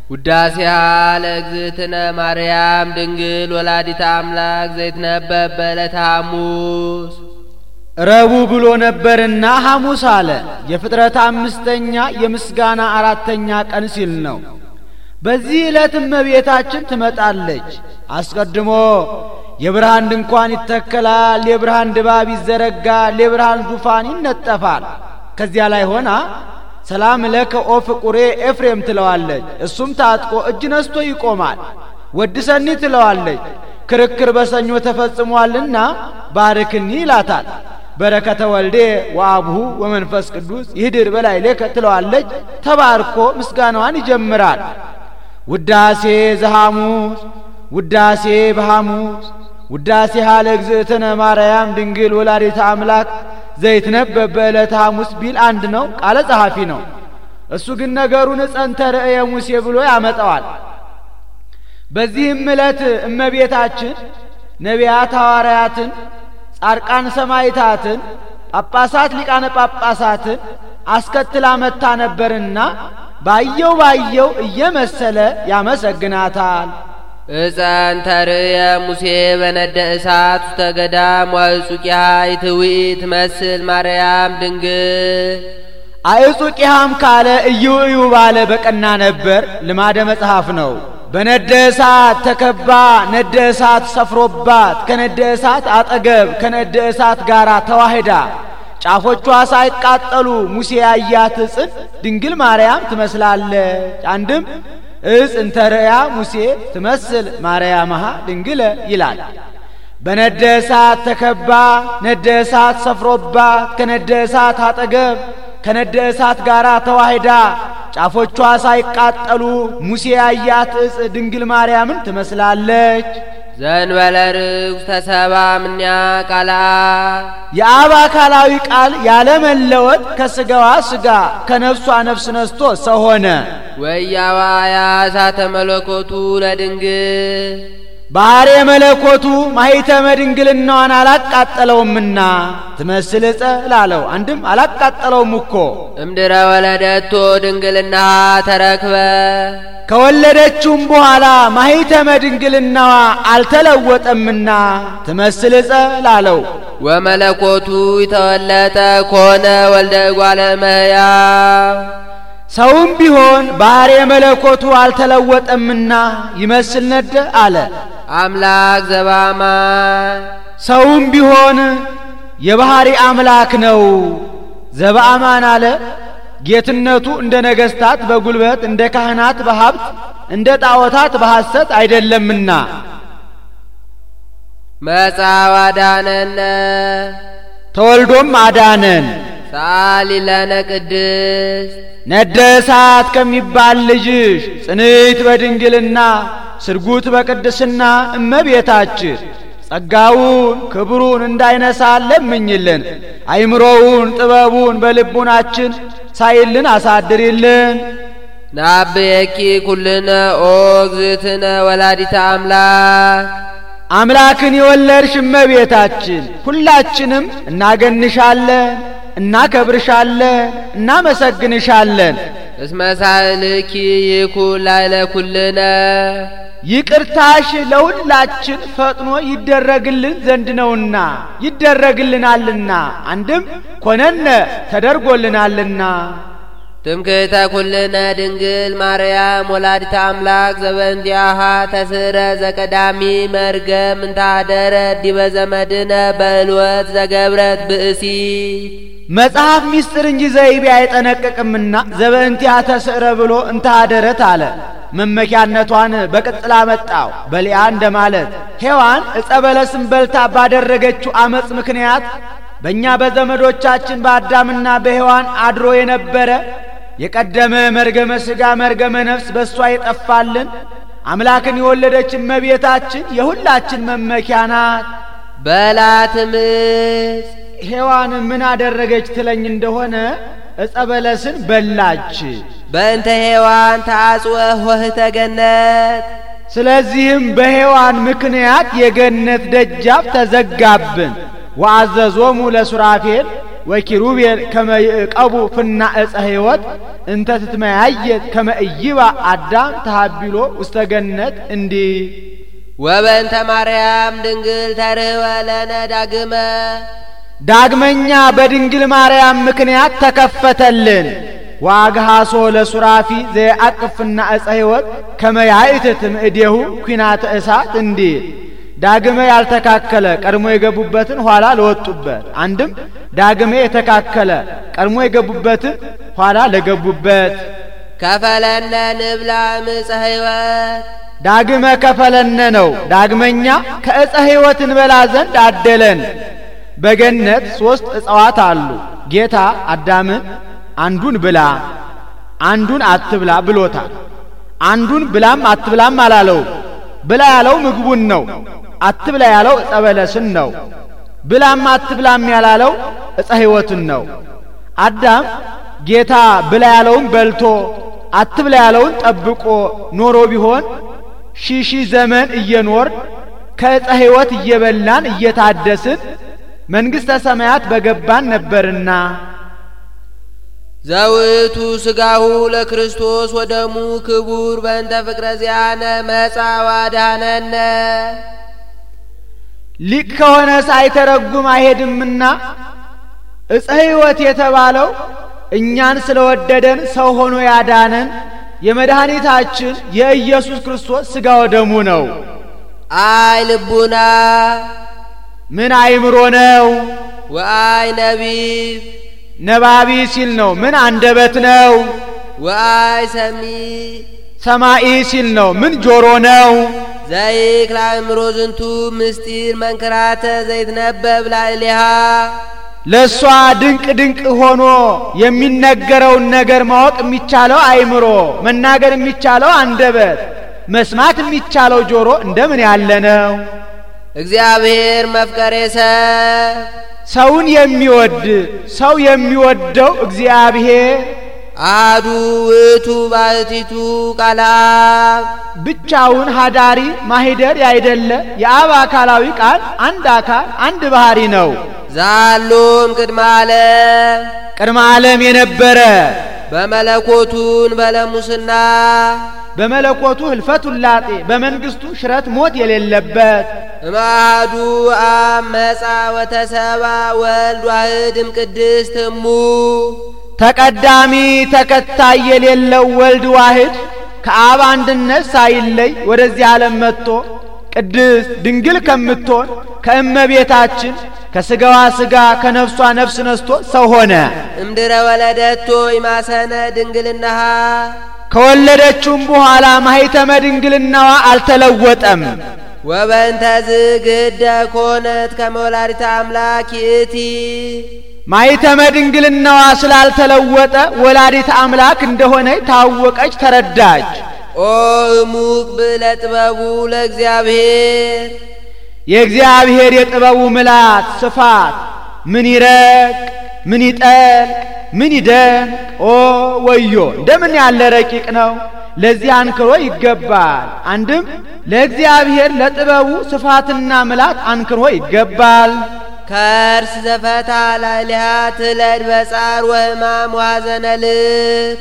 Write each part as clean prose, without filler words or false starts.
ውዳሴሃ ለእግዝእትነ ማርያም ድንግል ወላዲተ አምላክ ዘይትነበብ በዕለተ ሐሙስ ረቡዕ ብሎ ነበርና ሐሙስ አለ። የፍጥረት አምስተኛ የምስጋና አራተኛ ቀን ሲል ነው። በዚህ ዕለት እመቤታችን ትመጣለች። አስቀድሞ የብርሃን ድንኳን ይተከላል፣ የብርሃን ድባብ ይዘረጋል፣ የብርሃን ዙፋን ይነጠፋል። ከዚያ ላይ ሆና ሰላም ለከ ኦ ፍቁሬ ኤፍሬም ትለዋለች። እሱም ታጥቆ እጅ ነስቶ ይቆማል። ወድሰኒ ትለዋለች። ክርክር በሰኞ ተፈጽሟልና ባርክኒ ይላታል። በረከተ ወልዴ ወአብሁ ወመንፈስ ቅዱስ ይህድር በላይ ለከ ትለዋለች። ተባርኮ ምስጋናዋን ይጀምራል። ውዳሴ ዘሐሙስ ውዳሴ በሐሙስ ውዳሴሃ ለእግዝእትነ ማርያም ድንግል ወላዲተ አምላክ ዘይትነበብ በዕለተ ሐሙስ ቢል አንድ ነው፣ ቃለ ጸሐፊ ነው። እሱ ግን ነገሩን ጸንተ ርእየ ሙሴ ብሎ ያመጣዋል። በዚህም ዕለት እመቤታችን ነቢያት ሐዋርያትን፣ ጻድቃን ሰማዕታትን፣ ጳጳሳት ሊቃነ ጳጳሳትን አስከትላ መታ ነበርና ባየው እየመሰለ ያመሰግናታል። እጸንተ ርእየ ሙሴ በነደ እሳት ውስተ ገዳም ወአዕጹቂሃ ይትውኢት ትመስል ማርያም ድንግል። አዕጹቂሃም ካለ እዩ ባለ በቀና ነበር፣ ልማደ መጽሐፍ ነው። በነደ እሳት ተከባ ነደ እሳት ሰፍሮባት ከነደ እሳት አጠገብ ከነደ እሳት ጋር ተዋህዳ ጫፎቿ ሳይቃጠሉ ሙሴ ያያት ጽን ድንግል ማርያም ትመስላለች። አንድም እጽንተ ርእያ ሙሴ ትመስል ማርያምሃ ድንግለ ይላል። በነደ እሳት ተከባ ነደ እሳት ሰፍሮባት ከነደ እሳት አጠገብ ከነደ እሳት ጋር ተዋህዳ ጫፎቿ ሳይቃጠሉ ሙሴ ያያት እጽ ድንግል ማርያምን ትመስላለች። ዘንበለ ርኩስ ተሰባ ምንያ ቃላ የአብ አካላዊ ቃል ያለ መለወጥ ከስጋዋ ስጋ ከነፍሷ ነፍስ ነስቶ ሰው ሆነ። ወያዋያ እሳተ መለኮቱ ለድንግል ባህሬ መለኮቱ ማኅተመ ድንግልናዋን አላቃጠለውምና ትመስል ዕፀ ላለው አንድም አላቃጠለውም እኮ። እምድረ ወለደቶ ድንግልና ተረክበ ከወለደችውም በኋላ ማኅተመ ድንግልናዋ አልተለወጠምና ትመስል ዕፀ ላለው። ወመለኮቱ ይተወለጠ ኮነ ወልደ እጓለ እመሕያው ሰውም ቢሆን ባህሬ መለኮቱ አልተለወጠምና ይመስል ነደ አለ። አምላክ ዘበአማን ሰውም ቢሆን የባህሪ አምላክ ነው። ዘበአማን አለ። ጌትነቱ እንደ ነገስታት በጉልበት እንደ ካህናት በሀብት እንደ ጣዖታት በሐሰት አይደለምና። መጻው አዳነነ ተወልዶም አዳነን። ሳሊ ለነ ቅድስት ነደ እሳት ከሚባል ልጅሽ ጽንዕት በድንግልና ስርጉት በቅድስና እመቤታችን ጸጋውን ክብሩን እንዳይነሳን ለምኝልን። አይምሮውን ጥበቡን በልቡናችን ሳይልን አሳድሪልን። ናብየኪ ኩልነ ኦ እግዝእትነ ወላዲተ አምላክ አምላክን የወለድሽ እመቤታችን ሁላችንም እናገንሻለን፣ እናከብርሻለን፣ እናመሰግንሻለን። እስመ ሳህልኪ ይኩን ላዕለ ኩልነ ይቅርታሽ ለሁላችን ፈጥኖ ይደረግልን ዘንድ ነውና ይደረግልናልና። አንድም ኮነነ ተደርጎልናልና። ትምክህተ ኩልነ ድንግል ማርያም ወላዲተ አምላክ ዘበእንቲአሃ ተስረ ዘቀዳሚ መርገም እንታደረ ዲበ ዘመድነ በእልወት ዘገብረት ብእሲ መጽሐፍ ሚስጥር እንጂ ዘይቤ አይጠነቅቅምና ዘበእንቲአሃ ተስረ ብሎ እንታደረት አለ። መመኪያነቷን በቅጽላ መጣው በሊያ እንደማለት ሔዋን ዕፀ በለስን በልታ ባደረገችው አመጽ ምክንያት በእኛ በዘመዶቻችን በአዳምና በሔዋን አድሮ የነበረ የቀደመ መርገመ ሥጋ መርገመ ነፍስ በሷ የጠፋልን አምላክን የወለደች እመቤታችን የሁላችን መመኪያ ናት። በላትምስ ሔዋን ምን አደረገች ትለኝ እንደሆነ ዕፀ በለስን በላች። በእንተ ሔዋን ተአጽወ ኆኅተ ገነት ስለዚህም በሔዋን ምክንያት የገነት ደጃፍ ተዘጋብን። ወአዘዞሙ ለሱራፌል ወኪሩቤል ከመ ይዕቀቡ ፍና ዕፀ ሕይወት እንተ ትትመያየት ከመ ኢይባ አዳም ተሃቢሎ ውስተ ገነት እንዲህ ወበእንተ ማርያም ድንግል ተርኅወ ለነ ዳግመኛ በድንግል ማርያም ምክንያት ተከፈተልን። ዋግሃሶ ለሱራፊ ዘያቅፍና ዕፀ ሕይወት ከመ ያእትትም እዴሁ ኩናተ እሳት እንዲል ዳግመ ያልተካከለ ቀድሞ የገቡበትን ኋላ ለወጡበት፣ አንድም ዳግመ የተካከለ ቀድሞ የገቡበትን ኋላ ለገቡበት። ከፈለነ ንብላ ዕፀ ሕይወት ዳግመ ከፈለነ ነው። ዳግመኛ ከዕፀ ሕይወት እንበላ ዘንድ አደለን። በገነት 3 ዕፀዋት አሉ። ጌታ አዳምን አንዱን ብላ አንዱን አትብላ ብሎታል። አንዱን ብላም አትብላም አላለው። ብላ ያለው ምግቡን ነው። አትብላ ያለው ዕፀ በለስን ነው። ብላም አትብላም ያላለው ዕፀ ሕይወትን ነው። አዳም ጌታ ብላ ያለውን በልቶ አትብላ ያለውን ጠብቆ ኖሮ ቢሆን ሺህ ዘመን እየኖር ከዕፀ ሕይወት እየበላን እየታደስን መንግሥተ ሰማያት በገባን ነበርና። ዘውቱ ሥጋሁ ለክርስቶስ ወደሙ ክቡር በእንተ ፍቅረ ዚአነ መጻ ወአድኀነነ። ሊቅ ከሆነ ሳይተረጉም አይሄድምና ዕፀ ሕይወት የተባለው እኛን ስለወደደን ሰው ሆኖ ያዳነን የመድኃኒታችን የኢየሱስ ክርስቶስ ሥጋ ወደሙ ነው። አይ ልቡና ምን አይምሮ ነው? ወአይ ነቢብ ነባቢ ሲል ነው። ምን አንደበት ነው? ወአይ ሰሚ ሰማኢ ሲል ነው። ምን ጆሮ ነው? ዘይክል አእምሮ ዝንቱ ምስጢር መንክራተ ዘይትነበብ ላዕሌሃ። ለሷ ድንቅ ድንቅ ሆኖ የሚነገረውን ነገር ማወቅ የሚቻለው አይምሮ፣ መናገር የሚቻለው አንደበት፣ መስማት የሚቻለው ጆሮ እንደምን ያለ ነው? እግዚአብሔር መፍቀሬ ሰውን የሚወድ ሰው የሚወደው እግዚአብሔር አሐዱ ውእቱ ባሕቲቱ ቃለ አብ ብቻውን ሀዳሪ ማሂደር ያይደለ የአብ አካላዊ ቃል አንድ አካል አንድ ባህሪ ነው። ዛሎም ቅድመ ዓለም የነበረ በመለኮቱን በለሙስና በመለኮቱ ህልፈት ውላጤ በመንግስቱ ሽረት ሞት የሌለበት እማዱ አብ መጻ ወተሰባ ወልድ ዋሕድ እምቅድስት እሙ ተቀዳሚ ተከታይ የሌለው ወልድ ዋሕድ ከአብ አንድነት ሳይለይ ወደዚህ ዓለም መጥቶ ቅድስት ድንግል ከምትሆን ከእመቤታችን ከስጋዋ ስጋ ከነፍሷ ነፍስ ነስቶ ሰው ሆነ። እምድረ ወለደቶ ይማሰነ ድንግልናሃ ከወለደችውም በኋላ ማኅተመ ድንግልናዋ አልተለወጠም። ወበእንተ ዝግደ ኮነት ከመ ወላዲተ አምላክ ይእቲ ማኅተመ ድንግልናዋ ስላልተለወጠ ወላዲተ አምላክ እንደሆነ ታወቀች፣ ተረዳች። ኦ እሙቅ ብለ ጥበቡ ለእግዚአብሔር የእግዚአብሔር የጥበቡ ምላት ስፋት ምን ይረቅ ምን ይጠልቅ ምን ይደንቅ! ኦ ወዮ እንደምን ያለ ረቂቅ ነው! ለዚህ አንክሮ ይገባል። አንድም ለእግዚአብሔር ለጥበቡ ስፋትና ምላት አንክሮ ይገባል። ከርስ ዘፈታ ላዕሌሃ ትለድ በጻር ወሕማም ወሐዘነ ልብ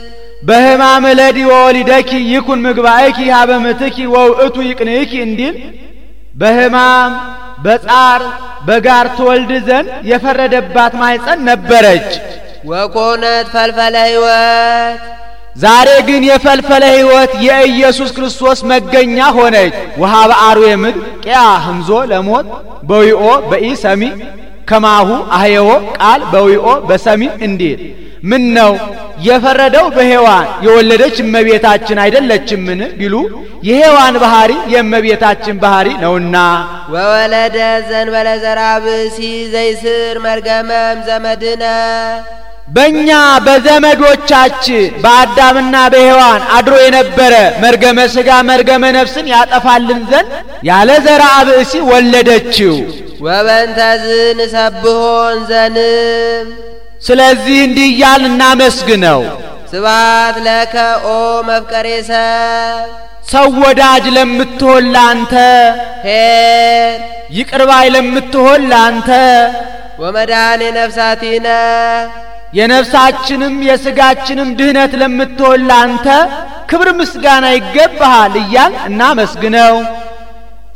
በሕማም ለዲ ወወሊደኪ ይኩን ምግባእኪ ሀበ ምትኪ ወውእቱ ይቅንእኪ እንዲል በሕማም በጻር በጋር ትወልድ ዘንድ የፈረደባት ማኅፀን ነበረች። ወኮነት ፈልፈለ ሕይወት ዛሬ ግን የፈልፈለ ሕይወት የኢየሱስ ክርስቶስ መገኛ ሆነች። ወሃበ አርዌ ምድር ቂያ ህምዞ ለሞት በዊኦ በኢ ሰሚ ከማሁ አህየዎ ቃል በዊኦ በሰሚ እንዲል ምን ነው የፈረደው በሔዋን የወለደች እመቤታችን አይደለችምን ቢሉ የሔዋን ባህሪ የእመቤታችን ባህሪ ነውና። ወወለደ ዘንበለ ዘርአ ብእሲ ዘይስር መርገመም ዘመድነ በእኛ በዘመዶቻችን በአዳምና በሔዋን አድሮ የነበረ መርገመ ሥጋ መርገመ ነፍስን ያጠፋልን ዘንድ ያለ ዘርአ ብእሲ ወለደችው። ወበእንተዝ ንሰብሖን ዘንም ስለዚህ እንዲህ እያልን እናመስግነው። ስብሐት ለከ ኦ መፍቀሬ ሰው ወዳጅ ለምትሆን ላንተ ኄር ይቅር ባይ ለምትሆን ላንተ ወመድኃኔ ነፍሳቲነ የነፍሳችንም የሥጋችንም ድህነት ለምትሆን ላንተ ክብር ምስጋና ይገባሃል እያል እናመስግነው።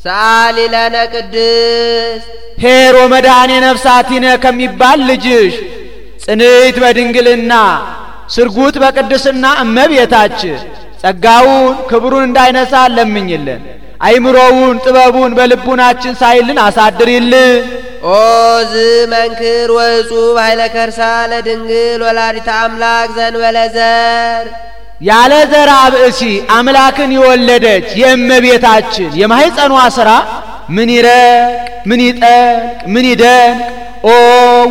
ሰአሊ ለነ ቅድስት ኄር ወመድኃኔ ነፍሳቲነ ከሚባል ልጅሽ ጽንዕት በድንግልና ስርጉት በቅድስና እመቤታችን ጸጋውን ክብሩን እንዳይነሳ ለምኝልን። አይምሮውን ጥበቡን በልቡናችን ሳይልን አሳድሪልን። ኦ ዝመንክር ወእጹብ ኃይለ ከርሳ ለድንግል ወላዲተ አምላክ ዘእንበለ ዘር ያለ ዘር ብእሲ አምላክን የወለደች የእመቤታችን የማኅፀኗ ሥራ ምን ይረቅ ምን ይጠልቅ ምን ይደንቅ! ኦ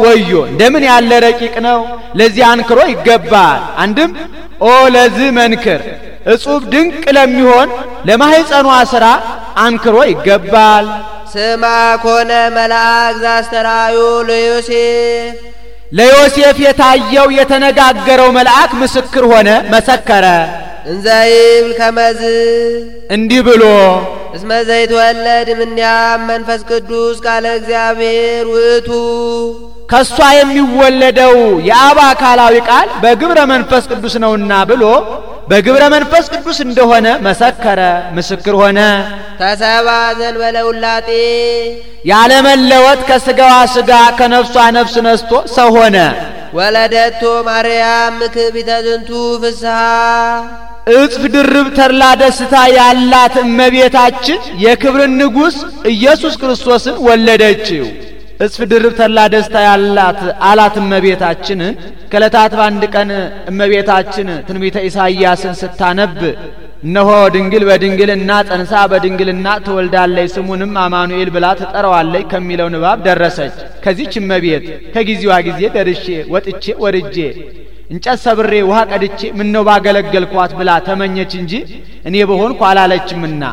ወዮ እንደምን ያለ ረቂቅ ነው! ለዚህ አንክሮ ይገባል። አንድም ኦ ለዚህ መንክር እጹብ ድንቅ ለሚሆን ለማኅፀኗ ሥራ አንክሮ ይገባል። ስማ ኮነ መልአክ ዘአስተርአዮ ለዮሴፍ የታየው የተነጋገረው መልአክ ምስክር ሆነ መሰከረ። እንዘይብል ከመዝ እንዲህ ብሎ እስመ ዘይትወለድ እምኔሃ መንፈስ ቅዱስ ቃለ እግዚአብሔር ውእቱ ከሷ የሚወለደው የአብ አካላዊ ቃል በግብረ መንፈስ ቅዱስ ነውና ብሎ በግብረ መንፈስ ቅዱስ እንደሆነ መሰከረ ምስክር ሆነ። ተሰባ ዘእንበለ ውላጤ ያለ መለወጥ ከሥጋዋ ሥጋ ከነፍሷ ነፍስ ነስቶ ሰው ሆነ። ወለደቶ ማርያም ምክቢተ ዝንቱ ፍስሐ እጽፍ ድርብ ተድላ ደስታ ያላት እመቤታችን የክብርን ንጉሥ ኢየሱስ ክርስቶስን ወለደችው። እጽፍ ድርብ ተድላ ደስታ ያላት አላት እመቤታችን። ከዕለታት በአንድ ቀን እመቤታችን ትንቢተ ኢሳይያስን ስታነብ እነሆ ድንግል በድንግልና ጸንሳ በድንግልና ትወልዳለች ስሙንም አማኑኤል ብላ ትጠራዋለች ከሚለው ንባብ ደረሰች። ከዚህች እመቤት ከጊዜዋ ጊዜ ደርሼ ወጥቼ ወርጄ እንጨት ሰብሬ ውሃ ቀድቼ ምነው ባገለገልኳት ብላ ተመኘች እንጂ እኔ በሆንኩ አላለችምና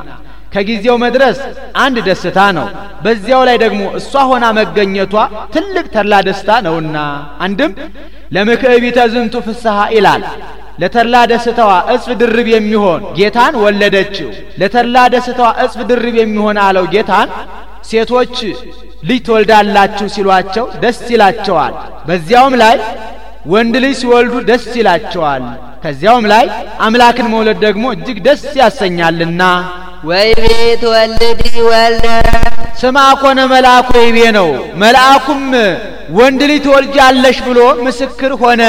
ከጊዜው መድረስ አንድ ደስታ ነው። በዚያው ላይ ደግሞ እሷ ሆና መገኘቷ ትልቅ ተድላ ደስታ ነውና አንድም ለምክዕቢተ ዝንቱ ፍስሐ ይላል። ለተድላ ደስታዋ እጽፍ ድርብ የሚሆን ጌታን ወለደችው። ለተድላ ደስታዋ እጽፍ ድርብ የሚሆን አለው ጌታን ሴቶች ልጅ ትወልዳላችሁ ሲሏቸው ደስ ይላቸዋል። በዚያውም ላይ ወንድ ልጅ ሲወልዱ ደስ ይላቸዋል። ከዚያውም ላይ አምላክን መውለድ ደግሞ እጅግ ደስ ያሰኛልና ወይቤ ትወልዲ ወልደ ስማ ኮነ መልአኩ ወይቤ ነው። መልአኩም ወንድ ልጅ ትወልጃለሽ ብሎ ምስክር ሆነ።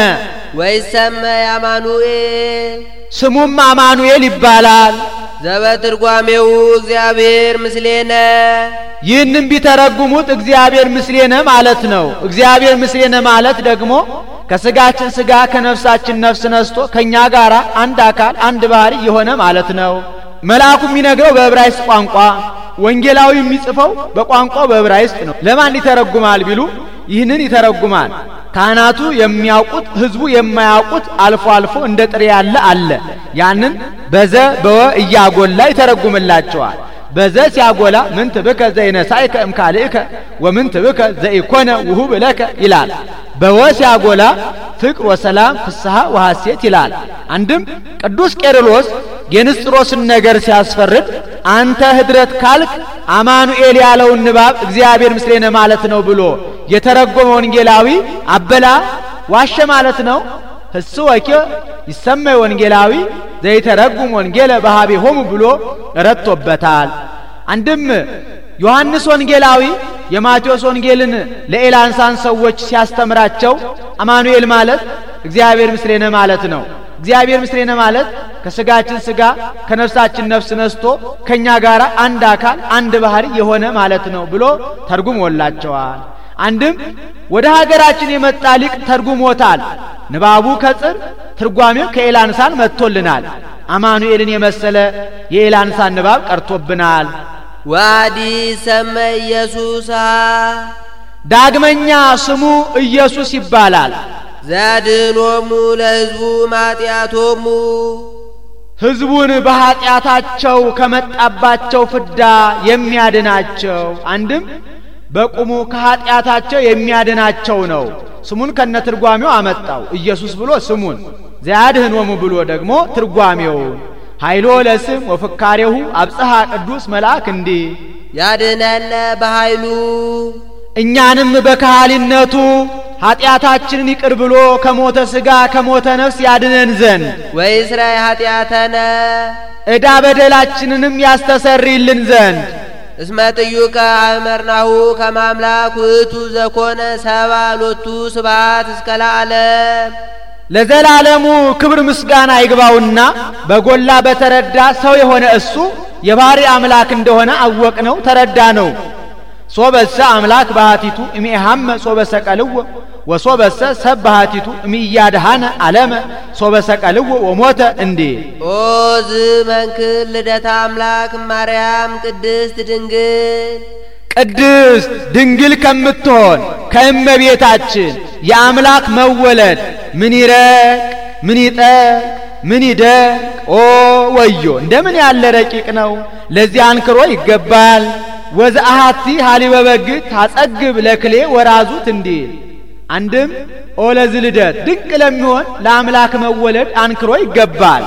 ወይሰመይ አማኑኤል ስሙም አማኑኤል ይባላል። ዘበትርጓሜው እግዚአብሔር ምስሌነ ይህንም ቢተረጉሙት እግዚአብሔር ምስሌነ ማለት ነው። እግዚአብሔር ምስሌነ ማለት ደግሞ ከሥጋችን ሥጋ ከነፍሳችን ነፍስ ነስቶ ከኛ ጋር አንድ አካል አንድ ባህሪ የሆነ ማለት ነው። መልአኩ የሚነግረው በዕብራይስጥ ቋንቋ፣ ወንጌላዊ የሚጽፈው በቋንቋው በዕብራይስጥ ነው። ለማን ይተረጉማል ቢሉ ይህንን ይተረጉማል። ካህናቱ የሚያውቁት ሕዝቡ የማያውቁት አልፎ አልፎ እንደ ጥሬ ያለ አለ። ያንን በዘ በወ እያጎላ ይተረጉምላቸዋል። በዘ ሲያጎላ ምን ትብከ ዘይነሳይከ እምካልእከ ወምን ትብከ ዘይኮነ ውሁብ ለከ ይላል። በወ ሲያጎላ ፍቅር ወሰላም ፍስሐ ወሐሴት ይላል። አንድም ቅዱስ ቄርሎስ የንስጥሮስን ነገር ሲያስፈርድ አንተ ህድረት ካልክ አማኑኤል ያለውን ንባብ እግዚአብሔር ምስሌነ ማለት ነው ብሎ የተረጎመ ወንጌላዊ አበላ ዋሸ ማለት ነው። ህስወከ ይሰመይ ወንጌላዊ ዘይተረጉም ወንጌለ በኀቤሆሙ ብሎ ረቶበታል። አንድም ዮሐንስ ወንጌላዊ የማቴዎስ ወንጌልን ለኤላንሳን ሰዎች ሲያስተምራቸው አማኑኤል ማለት እግዚአብሔር ምስሌነ ማለት ነው። እግዚአብሔር ምስሌነ ማለት ከሥጋችን ሥጋ ከነፍሳችን ነፍስ ነስቶ ከኛ ጋር አንድ አካል አንድ ባህሪ የሆነ ማለት ነው ብሎ ተርጉሞላቸዋል። አንድም ወደ ሀገራችን የመጣ ሊቅ ተርጉሞታል። ንባቡ ከጽር ትርጓሜው ከኤላንሳን መጥቶልናል። አማኑኤልን የመሰለ የኤላንሳን ንባብ ቀርቶብናል። ዋዲ ሰመ ኢየሱስ ዳግመኛ ስሙ ኢየሱስ ይባላል። ዘድኅኖሙ ለሕዝቡ ማጢአቶሙ ሕዝቡን በኀጢአታቸው ከመጣባቸው ፍዳ የሚያድናቸው። አንድም በቁሙ ከኀጢአታቸው የሚያድናቸው ነው። ስሙን ከነትርጓሜው አመጣው። ኢየሱስ ብሎ ስሙን ዘያድኅኖሙ ብሎ ደግሞ ትርጓሜውን ኃይሎ ለስም ወፍካሬሁ አብጽሐ ቅዱስ መልአክ እንዲህ ያድነነ በኃይሉ እኛንም በካህሊነቱ ኃጢአታችንን ይቅር ብሎ ከሞተ ሥጋ ከሞተ ነፍስ ያድነን ዘንድ ወይስራይ ኃጢአተነ ዕዳ በደላችንንም ያስተሰርይልን ዘንድ እስመ ጥዩቀ አእመርናሁ ከመ አምላክ ውእቱ ዘኮነ ሰብአ ሎቱ ስብሐት እስከ ለዓለም ለዘላለሙ ክብር ምስጋና ይግባውና በጎላ በተረዳ ሰው የሆነ እሱ የባህሪ አምላክ እንደሆነ አወቅነው ተረዳነው። ሶበሰ አምላክ ባህቲቱ እሚሃመ ሶበሰ ቀልዎ ወሶበሰ ሰብ ባህቲቱ እሚያድሃነ ዓለመ ሶበሰ ቀልዎ ወሞተ እንዴ ኦ ዝመንክር ልደታ አምላክ ማርያም ቅድስት ድንግል ከምትሆን ከእመቤታችን የአምላክ መወለድ ምን ይረቅ ምን ይጠቅ ምን ይደቅ ኦ ወዮ እንደምን ያለ ረቂቅ ነው። ለዚህ አንክሮ ይገባል። ወዘአሃቲ ሀሊበ በግ ታጸግብ ለክሌ ወራዙት እንዲል አንድም ኦ ለዚህ ልደት ድንቅ ለሚሆን ለአምላክ መወለድ አንክሮ ይገባል።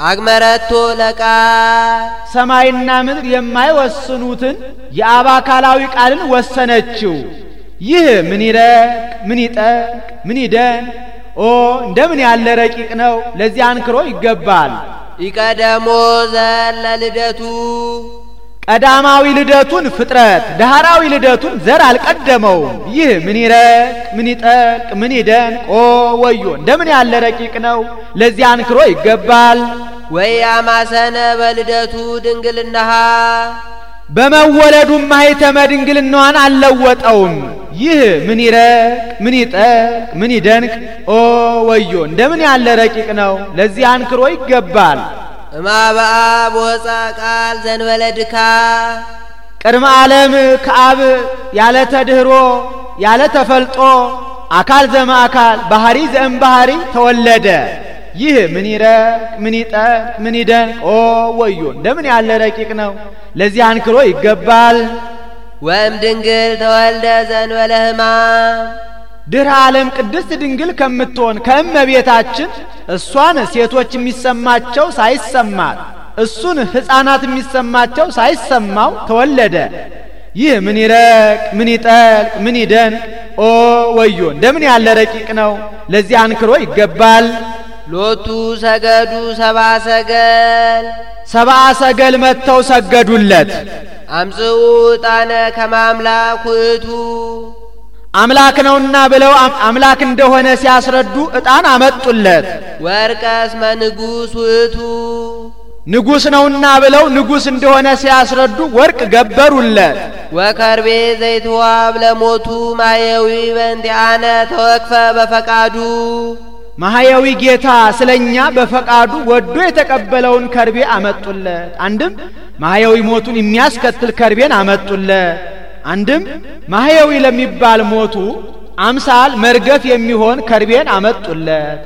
አግመረቶ ለቃል ሰማይና ምድር የማይወስኑትን የአብ አካላዊ ቃልን ወሰነችው። ይህ ምን ይረቅ ምን ይጠቅ ምን ይደን ኦ እንደምን ያለ ረቂቅ ነው። ለዚህ አንክሮ ይገባል። ይቀደሞ ዘለ ልደቱ ቀዳማዊ ልደቱን ፍጥረት ዳህራዊ ልደቱን ዘር አልቀደመውም። ይህ ምን ይረቅ ምን ይጠቅ ምን ይደን ኦ ወዮ እንደምን ያለ ረቂቅ ነው። ለዚህ አንክሮ ይገባል። ወያማሰነ በልደቱ ድንግልናሃ በመወለዱም ማኅተመ ድንግልናዋን አልለወጠውም። ይህ ምን ይረቅ ምን ይጠቅ ምን ይደንቅ ኦ ወዮ እንደምን ያለ ረቂቅ ነው። ለዚህ አንክሮ ይገባል። እማበአ ቦጻ ቃል ዘንበለ ድካ ቅድመ ዓለም ከአብ ያለ ተድህሮ ያለ ተፈልጦ አካል ዘእምአካል ባህሪ ዘእምባህሪ ተወለደ። ይህ ምን ይረቅ ምን ይጠቅ ምን ይደንቅ ኦ ወዮ እንደምን ያለ ረቂቅ ነው። ለዚህ አንክሮ ይገባል። ወእም ድንግል ተወልደ ዘንበለ ሕማም ድኅረ ዓለም ቅድስት ድንግል ከምትሆን ከእመቤታችን እሷን ሴቶች የሚሰማቸው ሳይሰማት እሱን ሕፃናት የሚሰማቸው ሳይሰማው ተወለደ። ይህ ምን ይረቅ ምን ይጠልቅ ምን ይደንቅ ኦ ወዮ እንደምን ያለ ረቂቅ ነው። ለዚህ አንክሮ ይገባል። ሎቱ ሰገዱ ሰብአ ሰገል ሰብአ ሰገል መጥተው ሰገዱለት። አምጽኡ ዕጣነ ከመ አምላክ ውእቱ አምላክ ነውና ብለው አምላክ እንደሆነ ሲያስረዱ ዕጣን አመጡለት። ወርቀ እስመ ንጉሥ ውእቱ ንጉሥ ነውና ብለው ንጉሥ እንደሆነ ሲያስረዱ ወርቅ ገበሩለት። ወከርቤ ዘይትዋብ ለሞቱ ማየዊ በእንቲአነ ተወክፈ በፈቃዱ ማህያዊ ጌታ ስለኛ በፈቃዱ ወዶ የተቀበለውን ከርቤ አመጡለት። አንድም ማህያዊ ሞቱን የሚያስከትል ከርቤን አመጡለት። አንድም ማህያዊ ለሚባል ሞቱ አምሳል መርገፍ የሚሆን ከርቤን አመጡለት።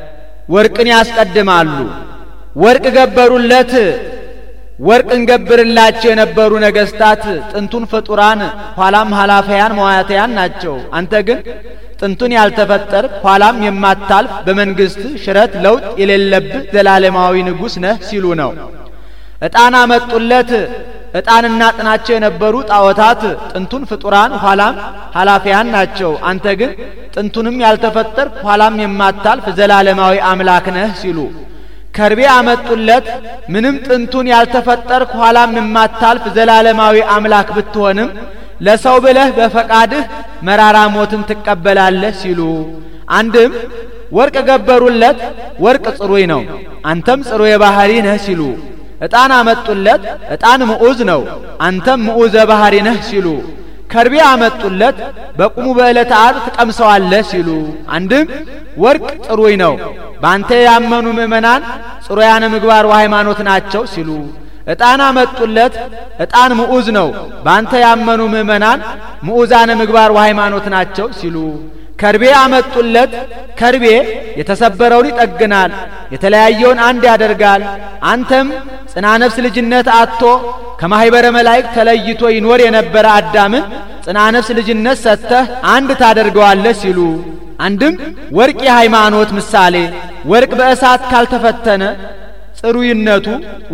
ወርቅን ያስቀድማሉ። ወርቅ ገበሩለት። ወርቅን ገብርላቸው የነበሩ ነገስታት ጥንቱን ፍጡራን ኋላም ኃላፊያን መዋያተያን ናቸው። አንተ ግን ጥንቱን ያልተፈጠር ኋላም የማታልፍ በመንግስት ሽረት ለውጥ የሌለብህ ዘላለማዊ ንጉሥ ነህ ሲሉ ነው። ዕጣን አመጡለት። ዕጣንና ጥናቸው የነበሩ ጣዖታት ጥንቱን ፍጡራን ኋላም ኃላፊያን ናቸው። አንተ ግን ጥንቱንም ያልተፈጠር ኋላም የማታልፍ ዘላለማዊ አምላክ ነህ ሲሉ ከርቤ አመጡለት። ምንም ጥንቱን ያልተፈጠር ኋላም የማታልፍ ዘላለማዊ አምላክ ብትሆንም ለሰው ብለህ በፈቃድህ መራራ ሞትን ትቀበላለህ ሲሉ አንድም ወርቅ ገበሩለት። ወርቅ ጽሩይ ነው፣ አንተም ጽሩይ ባህሪ ነህ ሲሉ ዕጣን አመጡለት። ዕጣን ምዑዝ ነው፣ አንተም ምዑዘ ባህሪ ነህ ሲሉ ከርቤ አመጡለት። በቁሙ በዕለተ ዓርብ ትቀምሰዋለህ ሲሉ አንድም ወርቅ ጽሩይ ነው፣ ባንተ ያመኑ ምእመናን ጽሩያነ ምግባር ወሃይማኖት ናቸው ሲሉ ዕጣን አመጡለት። ዕጣን ምዑዝ ነው፣ ባንተ ያመኑ ምእመናን ምዑዛነ ምግባር ወሃይማኖት ናቸው ሲሉ ከርቤ አመጡለት። ከርቤ የተሰበረውን ይጠግናል፣ የተለያየውን አንድ ያደርጋል። አንተም ጽና ነፍስ ልጅነት አጥቶ ከማህበረ መላእክት ተለይቶ ይኖር የነበረ አዳምን ጽና ነፍስ ልጅነት ሰጥተህ አንድ ታደርገዋለህ ሲሉ አንድም ወርቅ የሃይማኖት ምሳሌ ወርቅ በእሳት ካልተፈተነ ጽሩይነቱ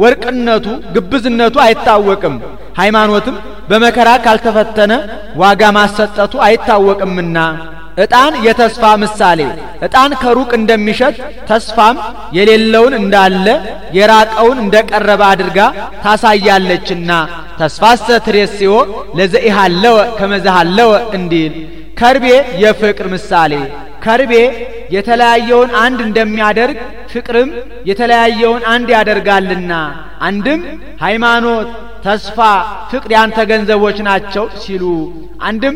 ወርቅነቱ ግብዝነቱ አይታወቅም። ሃይማኖትም በመከራ ካልተፈተነ ዋጋ ማሰጠቱ አይታወቅምና። ዕጣን የተስፋ ምሳሌ። ዕጣን ከሩቅ እንደሚሸት ተስፋም የሌለውን እንዳለ የራቀውን እንደቀረበ አድርጋ ታሳያለችና ተስፋሰ ትሬስዮ ለዘኢሃለወ ከመዘሃለወ እንዲል። ከርቤ የፍቅር ምሳሌ። ከርቤ የተለያየውን አንድ እንደሚያደርግ ፍቅርም የተለያየውን አንድ ያደርጋልና። አንድም ሃይማኖት፣ ተስፋ፣ ፍቅር ያንተ ገንዘቦች ናቸው ሲሉ፣ አንድም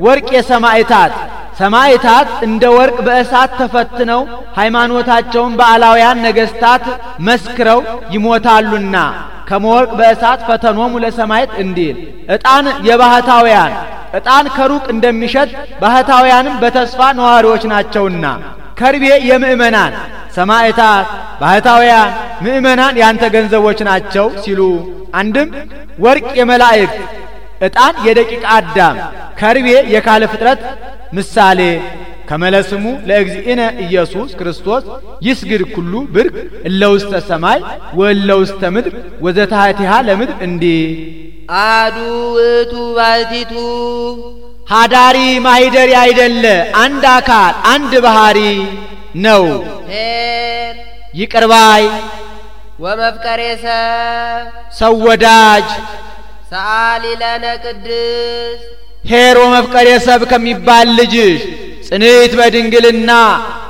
ወርቅ የሰማዕታት ሰማዕታት እንደ ወርቅ በእሳት ተፈትነው ሃይማኖታቸውን በአላውያን ነገስታት መስክረው ይሞታሉና ከመወርቅ በእሳት ፈተኖሙ ለሰማዕት እንዲል። ዕጣን የባህታውያን ዕጣን ከሩቅ እንደሚሸት ባህታውያንም በተስፋ ነዋሪዎች ናቸውና። ከርቤ የምእመናን ሰማዕታት፣ ባህታውያን፣ ምእመናን ያንተ ገንዘቦች ናቸው ሲሉ፣ አንድም ወርቅ የመላእክት ዕጣን የደቂቀ አዳም ከርቤ የካለ ፍጥረት ምሳሌ። ከመለስሙ ለእግዚእነ ኢየሱስ ክርስቶስ ይስግድ ኩሉ ብርክ እለ ውስተ ሰማይ ወእለ ውስተ ምድር ወዘታሕቲሃ ለምድር እንዲህ። አሐዱ ውእቱ ባሕቲቱ ሀዳሪ ማሂደሪ አይደለ አንድ አካል አንድ ባህሪ ነው። ኄር ይቅር ባይ ወመፍቀሬ ሰው ወዳጅ ሰአሊ ለነ ቅድስት ኄር ወመፍቀሬ ሰብ ከሚባል ልጅሽ ጽንዕት በድንግልና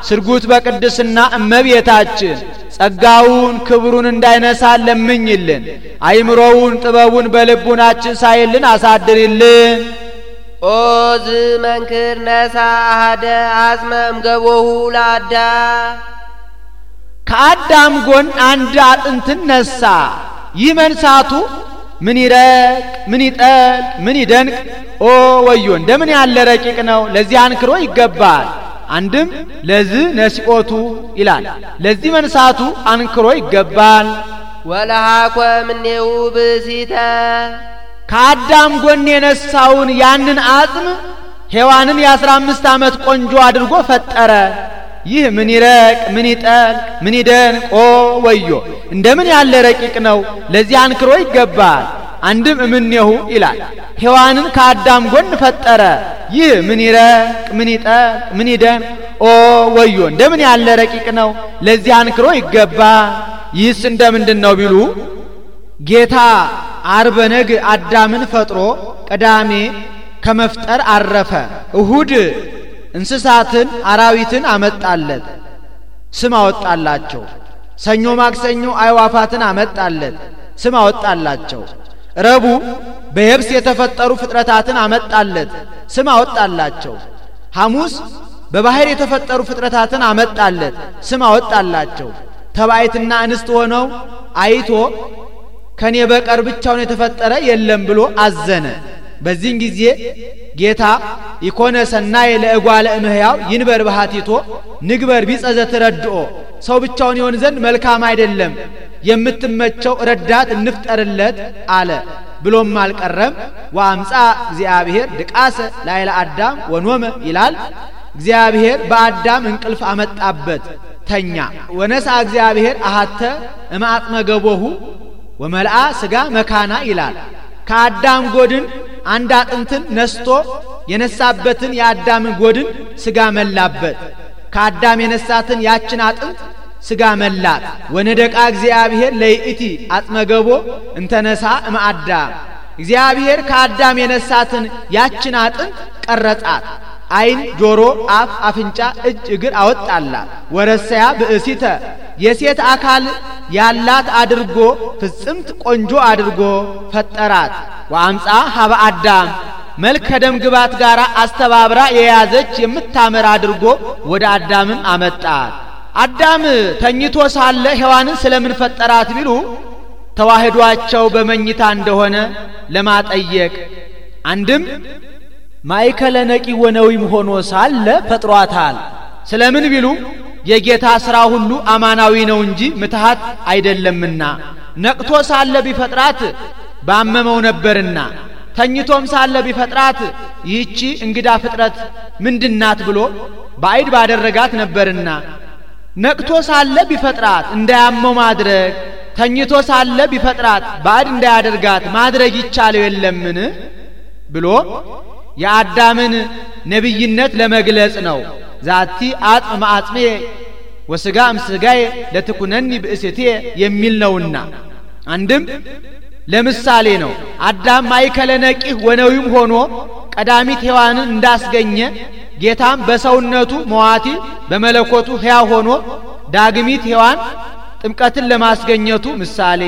ስርጉት በቅድስና እመቤታችን ጸጋውን ክብሩን እንዳይነሳን ለምኝልን። አይምሮውን ጥበቡን በልቡናችን ሳይልን አሳድሪልን። ኦ ዝመንክር ነሣ አሐደ አጽመ እምገቦሁ ለአዳም ከአዳም ጎን አንድ አጥንትን ነሳ። ይህ መንሳቱ ምን ይረቅ ምን ይጠልቅ ምን ይደንቅ! ኦ ወዮ እንደምን ያለ ረቂቅ ነው! ለዚህ አንክሮ ይገባል። አንድም ለዚህ ነሲኦቱ ይላል። ለዚህ መንሳቱ አንክሮ ይገባል። ወለሃኮ እምኔሁ ብእሲተ ከአዳም ጎን የነሳውን ያንን አጽም ሔዋንን የ15 ዓመት ቆንጆ አድርጎ ፈጠረ። ይህ ምን ይረቅ ምን ይጠልቅ ምን ይደንቅ! ኦ ወዮ እንደምን ያለ ረቂቅ ነው! ለዚህ አንክሮ ይገባል። አንድም እምኔሁ ይላል። ሔዋንን ከአዳም ጎን ፈጠረ። ይህ ምን ይረቅ ምን ይጠልቅ ምን ይደንቅ! ኦ ወዮ እንደምን ያለ ረቂቅ ነው! ለዚህ አንክሮ ይገባል። ይህስ እንደምንድን ነው ቢሉ ጌታ ዓርበ ነግ አዳምን ፈጥሮ ቅዳሜ ከመፍጠር አረፈ። እሁድ እንስሳትን አራዊትን አመጣለት፣ ስም አወጣላቸው። ሰኞ ማክሰኞ አዕዋፋትን አመጣለት፣ ስም አወጣላቸው። ረቡዕ በየብስ የተፈጠሩ ፍጥረታትን አመጣለት፣ ስም አወጣላቸው። ሐሙስ በባህር የተፈጠሩ ፍጥረታትን አመጣለት፣ ስም አወጣላቸው። ተባይትና እንስት ሆነው አይቶ ከኔ በቀር ብቻውን የተፈጠረ የለም ብሎ አዘነ። በዚህን ጊዜ ጌታ ኢኮነ ሰናይ ለእጓለ እምህያው ይንበር ባህቲቶ ንግበር ቢጸዘ ትረድኦ ሰው ብቻውን ይሆን ዘንድ መልካም አይደለም፣ የምትመቸው ረዳት እንፍጠርለት አለ። ብሎም አልቀረም። ወአምጻ እግዚአብሔር ድቃሰ ላይለ አዳም ወኖመ ይላል። እግዚአብሔር በአዳም እንቅልፍ አመጣበት፣ ተኛ። ወነሳ እግዚአብሔር አሐተ እማጥመ ገቦሁ ወመልአ ስጋ መካና ይላል። ከአዳም ጎድን አንድ አጥንትን ነስቶ የነሳበትን የአዳምን ጎድን ስጋ መላበት። ከአዳም የነሳትን ያችን አጥንት ስጋ መላት። ወነደቃ እግዚአብሔር ለይእቲ አጥመገቦ እንተነሳ እምአዳም እግዚአብሔር ከአዳም የነሳትን ያችን አጥንት ቀረጻት። አይን፣ ጆሮ፣ አፍ፣ አፍንጫ፣ እጅ፣ እግር አወጣላት። ወረሰያ ብእሲተ የሴት አካል ያላት አድርጎ ፍጽምት ቆንጆ አድርጎ ፈጠራት። ወአምጻ ሀበ አዳም መልከ ደም ግባት ጋር አስተባብራ የያዘች የምታምር አድርጎ ወደ አዳምም አመጣት። አዳም ተኝቶ ሳለ ሔዋንን ስለምን ፈጠራት ቢሉ ተዋህዷቸው በመኝታ እንደሆነ ለማጠየቅ። አንድም ማእከለ ነቂ ወነዊም ሆኖ ሳለ ፈጥሯታል። ስለምን ቢሉ የጌታ ሥራ ሁሉ አማናዊ ነው እንጂ ምትሃት አይደለምና። ነቅቶ ሳለ ቢፈጥራት ባመመው ነበርና፣ ተኝቶም ሳለ ቢፈጥራት ይህቺ እንግዳ ፍጥረት ምንድናት ብሎ ባዕድ ባደረጋት ነበርና፣ ነቅቶ ሳለ ቢፈጥራት እንዳያመው ማድረግ፣ ተኝቶ ሳለ ቢፈጥራት ባዕድ እንዳያደርጋት ማድረግ ይቻለው የለምን ብሎ የአዳምን ነብይነት ለመግለጽ ነው። ዛቲ አጥም ማጥሜ ወስጋ እምስጋዬ ለትኩነኒ ብእስቴ የሚል ነውና አንድም ለምሳሌ ነው። አዳም ማይከለ ነቂህ ወነዊም ሆኖ ቀዳሚት ሔዋንን እንዳስገኘ ጌታም በሰውነቱ መዋቲ በመለኮቱ ሕያው ሆኖ ዳግሚት ሔዋን ጥምቀትን ለማስገኘቱ ምሳሌ።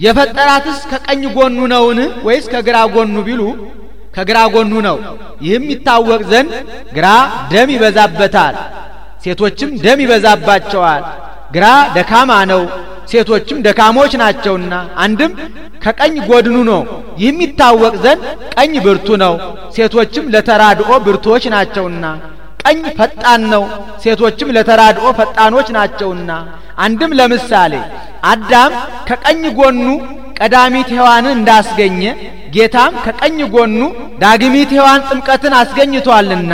የፈጠራትስ ከቀኝ ጎኑ ነውን ወይስ ከግራ ጎኑ ቢሉ ከግራ ጎኑ ነው። ይህም ይታወቅ ዘንድ ግራ ደም ይበዛበታል፣ ሴቶችም ደም ይበዛባቸዋል። ግራ ደካማ ነው፣ ሴቶችም ደካሞች ናቸውና። አንድም ከቀኝ ጎድኑ ነው። ይህም ይታወቅ ዘንድ ቀኝ ብርቱ ነው፣ ሴቶችም ለተራድኦ ብርቱዎች ናቸውና። ቀኝ ፈጣን ነው፣ ሴቶችም ለተራድኦ ፈጣኖች ናቸውና። አንድም ለምሳሌ አዳም ከቀኝ ጎኑ ቀዳሚት ሔዋንን እንዳስገኘ ጌታም ከቀኝ ጎኑ ዳግሚት ሔዋን ጥምቀትን አስገኝቷልና።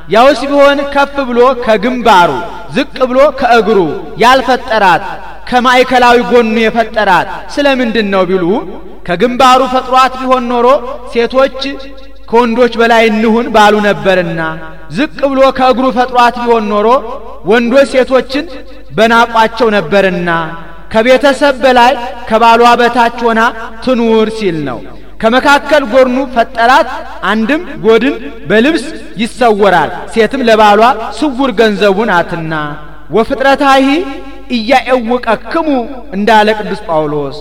ያውስ ቢሆን ከፍ ብሎ ከግንባሩ ዝቅ ብሎ ከእግሩ ያልፈጠራት ከማዕከላዊ ጎኑ የፈጠራት ስለምንድን ነው ቢሉ ከግንባሩ ፈጥሯት ቢሆን ኖሮ ሴቶች ከወንዶች በላይ እንሁን ባሉ ነበርና፣ ዝቅ ብሎ ከእግሩ ፈጥሯት ቢሆን ኖሮ ወንዶች ሴቶችን በናቋቸው ነበርና፣ ከቤተሰብ በላይ ከባሏ በታች ሆና ትኑር ሲል ነው። ከመካከል ጎኑ ፈጠራት። አንድም ጎድን በልብስ ይሰወራል፣ ሴትም ለባሏ ስውር ገንዘቡ ናትና። ወፍጥረታሂ ኢያኤውቀክሙ እንዳለ ቅዱስ ጳውሎስ።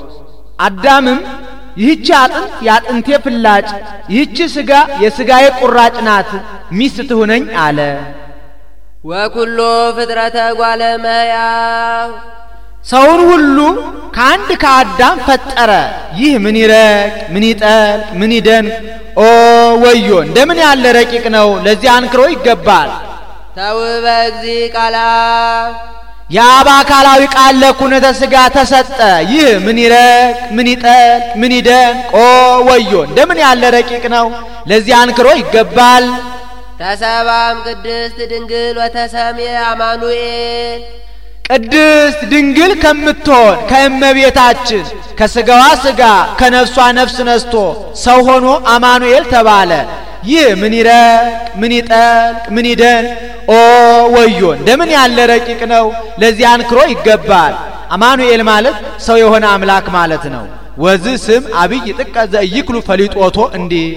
አዳምም ይህች አጥንት የአጥንቴ ፍላጭ፣ ይህች ሥጋ የሥጋዬ ቁራጭ ናት፣ ሚስት ትሁነኝ አለ። ወኩሎ ፍጥረተ ጓለ እመሕያው ሰውን ሁሉ ከአንድ ከአዳም ፈጠረ። ይህ ምን ይረቅ ምን ይጠልቅ ምን ይደንቅ! ኦ ወዮ! እንደምን ያለ ረቂቅ ነው! ለዚህ አንክሮ ይገባል። ተውበ እግዚእ ቃላ የአብ አካላዊ ቃል ለኩነተ ሥጋ ተሰጠ። ይህ ምን ይረቅ ምን ይጠልቅ ምን ይደንቅ! ኦ ወዮ! እንደምን ያለ ረቂቅ ነው! ለዚህ አንክሮ ይገባል። ተሰባም ቅድስት ድንግል ወተሰምየ አማኑኤል ቅድስት ድንግል ከምትሆን ከእመቤታችን ከሥጋዋ ሥጋ ከነፍሷ ነፍስ ነስቶ ሰው ሆኖ አማኑኤል ተባለ። ይህ ምን ይረቅ ምን ይጠልቅ ምን ይደንቅ! ኦ ወዮ! እንደምን ያለ ረቂቅ ነው! ለዚህ አንክሮ ይገባል። አማኑኤል ማለት ሰው የሆነ አምላክ ማለት ነው። ወዚህ ስም አብይ ጥቀ ዘኢይክሉ ፈሊጦቶ እንዲህ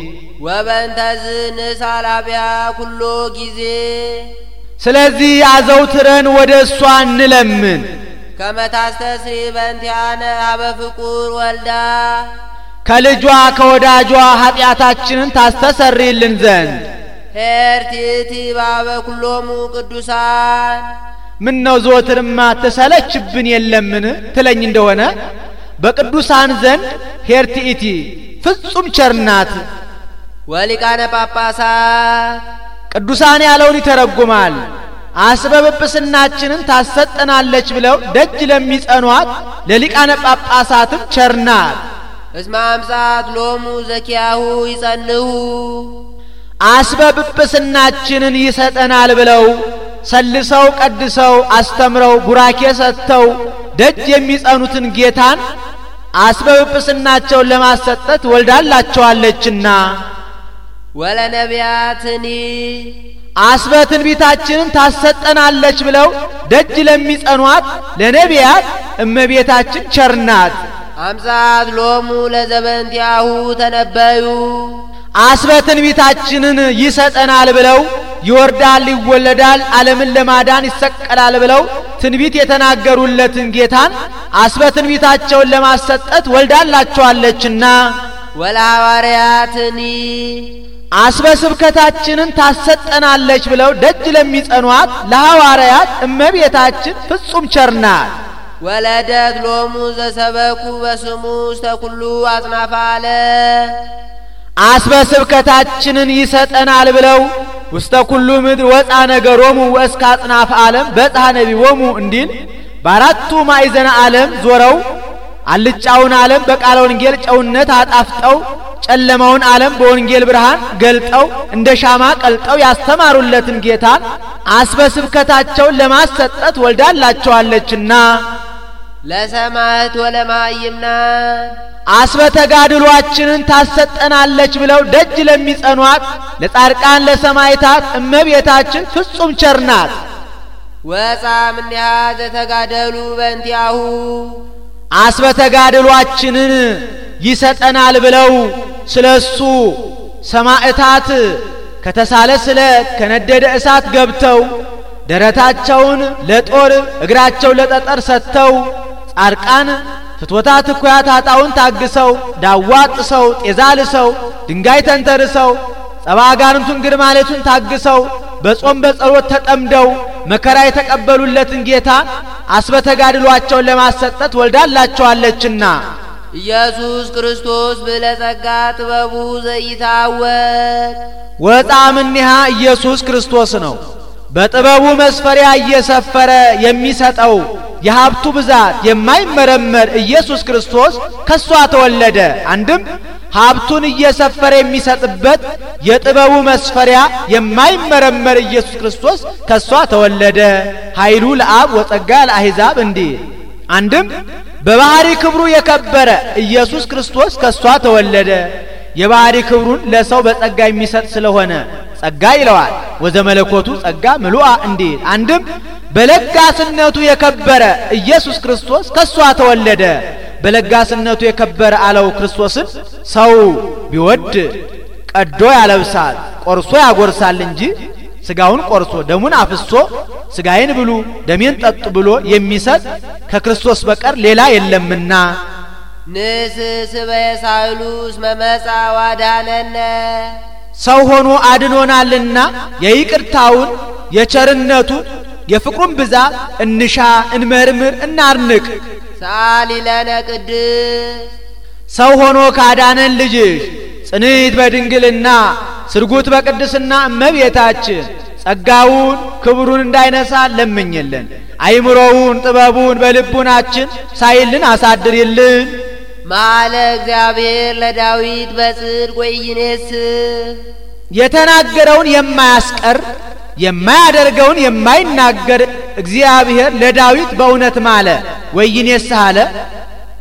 ወበእንተዝ ንሳላቢያ ኩሎ ጊዜ ስለዚህ አዘውትረን ወደ እሷ እንለምን። ከመታስተስሪ በእንቲአነ ሀበ ፍቁር ወልዳ ከልጇ ከወዳጇ ኃጢአታችንን ታስተሰርይልን ዘንድ ሄርቲቲ ባበ ኩሎሙ ቅዱሳን ምን ነው ዘወትርማ ተሰለችብን የለምን ትለኝ እንደሆነ በቅዱሳን ዘንድ ሄርቲቲ ፍጹም ቸርናት። ወሊቃነ ጳጳሳት ቅዱሳን ያለውን ይተረጉማል። አስበብጵስናችንን ታሰጠናለች ብለው ደጅ ለሚጸኗት ለሊቃነ ጳጳሳትም ቸርናት። እስመ አምጻት ሎሙ ዘኪያሁ ይጸንሁ አስበብጵስናችንን ይሰጠናል ብለው ሰልሰው ቀድሰው አስተምረው ቡራኬ ሰጥተው ደጅ የሚጸኑትን ጌታን አስበብጵስናቸውን ለማሰጠት ወልዳላቸዋለችና። ወለነቢያትኒ አስበ ትንቢታችንን ታሰጠናለች ብለው ደጅ ለሚጸኗት ለነቢያት እመቤታችን ቸርናት። አምጻት ሎሙ ለዘበንቲያሁ ተነበዩ አስበ ትንቢታችንን ይሰጠናል ብለው ይወርዳል ይወለዳል ዓለምን ለማዳን ይሰቀላል ብለው ትንቢት የተናገሩለትን ጌታን አስበ ትንቢታቸውን ለማሰጠት ወልዳላቸዋለችና። ወለሐዋርያትኒ አስበ ስብከታችንን ታሰጠናለች ብለው ደጅ ለሚጸኗት ለሐዋርያት እመቤታችን ፍጹም ቸርናት። ወለደት ሎሙ ዘሰበኩ በስሙ ውስተ ኩሉ አጽናፈ ዓለም አስበ ስብከታችንን ይሰጠናል ብለው ውስተ ኩሉ ምድር ወፃ ነገሮሙ ወእስከ አጽናፈ ዓለም በጽሐ ነቢቦሙ እንዲል በአራቱ ማዕዘነ ዓለም ዞረው አልጫውን ዓለም በቃለ ወንጌል ጨውነት አጣፍጠው ጨለማውን ዓለም በወንጌል ብርሃን ገልጠው እንደ ሻማ ቀልጠው ያስተማሩለትን ጌታን አስበ ስብከታቸውን ለማሰጠት ወልዳላቸዋለችና። ለሰማዕት ወለማይምናን አስበተጋድሏችንን ታሰጠናለች ብለው ደጅ ለሚጸኗት ለጻድቃን ለሰማዕታት እመቤታችን ፍጹም ቸርናት። ወጻም እንዲያ ዘተጋደሉ በእንቲአሁ አስበተጋድሏችንን ይሰጠናል ብለው ስለሱ ሰማዕታት ከተሳለ ስለት ከነደደ እሳት ገብተው ደረታቸውን ለጦር እግራቸው ለጠጠር ሰጥተው ጻድቃን ፍትወታት እኩያት ኃጣውን ታግሰው ዳዋ ጥሰው ጤዛ ልሰው ድንጋይ ተንተርሰው ጸባጋንቱን ግርማለቱን ታግሰው በጾም በጸሎት ተጠምደው መከራ የተቀበሉለትን ጌታ አስበተጋድሏቸውን ለማሰጠት ወልዳላቸዋለችና ኢየሱስ ክርስቶስ ብለጸጋ ጥበቡ ዘይታወቅ ወጣምንሃ ኢየሱስ ክርስቶስ ነው። በጥበቡ መስፈሪያ እየሰፈረ የሚሰጠው የሀብቱ ብዛት የማይመረመር ኢየሱስ ክርስቶስ ከሷ ተወለደ። አንድም ሀብቱን እየሰፈረ የሚሰጥበት የጥበቡ መስፈሪያ የማይመረመር ኢየሱስ ክርስቶስ ከሷ ተወለደ። ኃይሉ ለአብ ወጸጋ ለአሕዛብ እንዲል አንድም በባህሪ ክብሩ የከበረ ኢየሱስ ክርስቶስ ከሷ ተወለደ። የባህሪ ክብሩን ለሰው በጸጋ የሚሰጥ ስለሆነ ጸጋ ይለዋል። ወዘመለኮቱ ጸጋ ምሉአ እንዲል አንድም በለጋስነቱ የከበረ ኢየሱስ ክርስቶስ ከሷ ተወለደ። በለጋስነቱ የከበረ አለው ክርስቶስን ሰው ቢወድ ቀዶ ያለብሳል ቆርሶ ያጎርሳል እንጂ ስጋውን ቆርሶ ደሙን አፍሶ ስጋዬን ብሉ ደሜን ጠጡ ብሎ የሚሰጥ ከክርስቶስ በቀር ሌላ የለምና ንስስበየሳይሉስ መመጻ ዋዳነነ ሰው ሆኖ አድኖናልና የይቅርታውን የቸርነቱን የፍቅሩን ብዛት እንሻ እንመርምር እናርንቅ። ሳሊለነ ቅድስ ሰው ሆኖ ካዳነን ልጅሽ ጽንዕት በድንግልና ስርጉት በቅድስና እመቤታችን ጸጋውን ክብሩን እንዳይነሳ ለምኝልን። አይምሮውን ጥበቡን በልቡናችን ሳይልን አሳድርልን። ማለ እግዚአብሔር ለዳዊት በጽድቅ ወይኔስ የተናገረውን የማያስቀር የማያደርገውን የማይናገር እግዚአብሔር ለዳዊት በእውነት ማለ። ወይኔስ አለ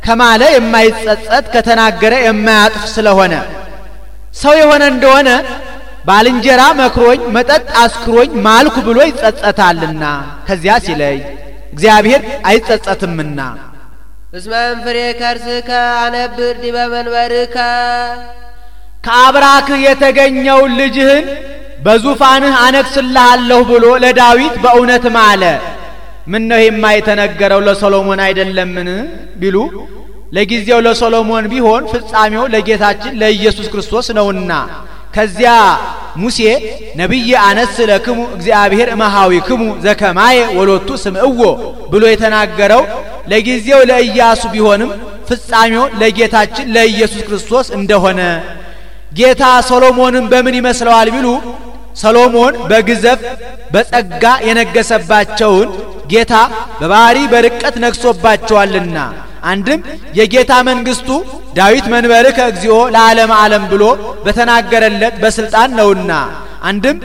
ከማለ የማይጸጸት ከተናገረ የማያጥፍ ስለሆነ ሰው የሆነ እንደሆነ ባልንጀራ መክሮኝ መጠጥ አስክሮኝ ማልኩ ብሎ ይጸጸታልና ከዚያ ሲለይ እግዚአብሔር አይጸጸትምና እስመን ፍሬ ከርስከ አነብር ዲበ መንበርከ ከአብራክህ የተገኘው ልጅህን በዙፋንህ አነግስልሃለሁ ብሎ ለዳዊት በእውነት ማለ። ምን ነው የማይተነገረው ለሶሎሞን አይደለምን ቢሉ ለጊዜው ለሶሎሞን ቢሆን ፍጻሜው ለጌታችን ለኢየሱስ ክርስቶስ ነውና ከዚያ ሙሴ ነብይ አነስ ለክሙ እግዚአብሔር እመሃዊክሙ ዘከማየ ወሎቱ ስምዕዎ ብሎ የተናገረው ለጊዜው ለኢያሱ ቢሆንም ፍጻሜው ለጌታችን ለኢየሱስ ክርስቶስ እንደሆነ ጌታ ሶሎሞንን በምን ይመስለዋል ቢሉ ሰሎሞን በግዘፍ በጸጋ የነገሰባቸውን ጌታ በባህሪ በርቀት ነግሶባቸዋልና አንድም የጌታ መንግስቱ ዳዊት መንበርከ እግዚኦ ለዓለም ዓለም ብሎ በተናገረለት በስልጣን ነውና አንድም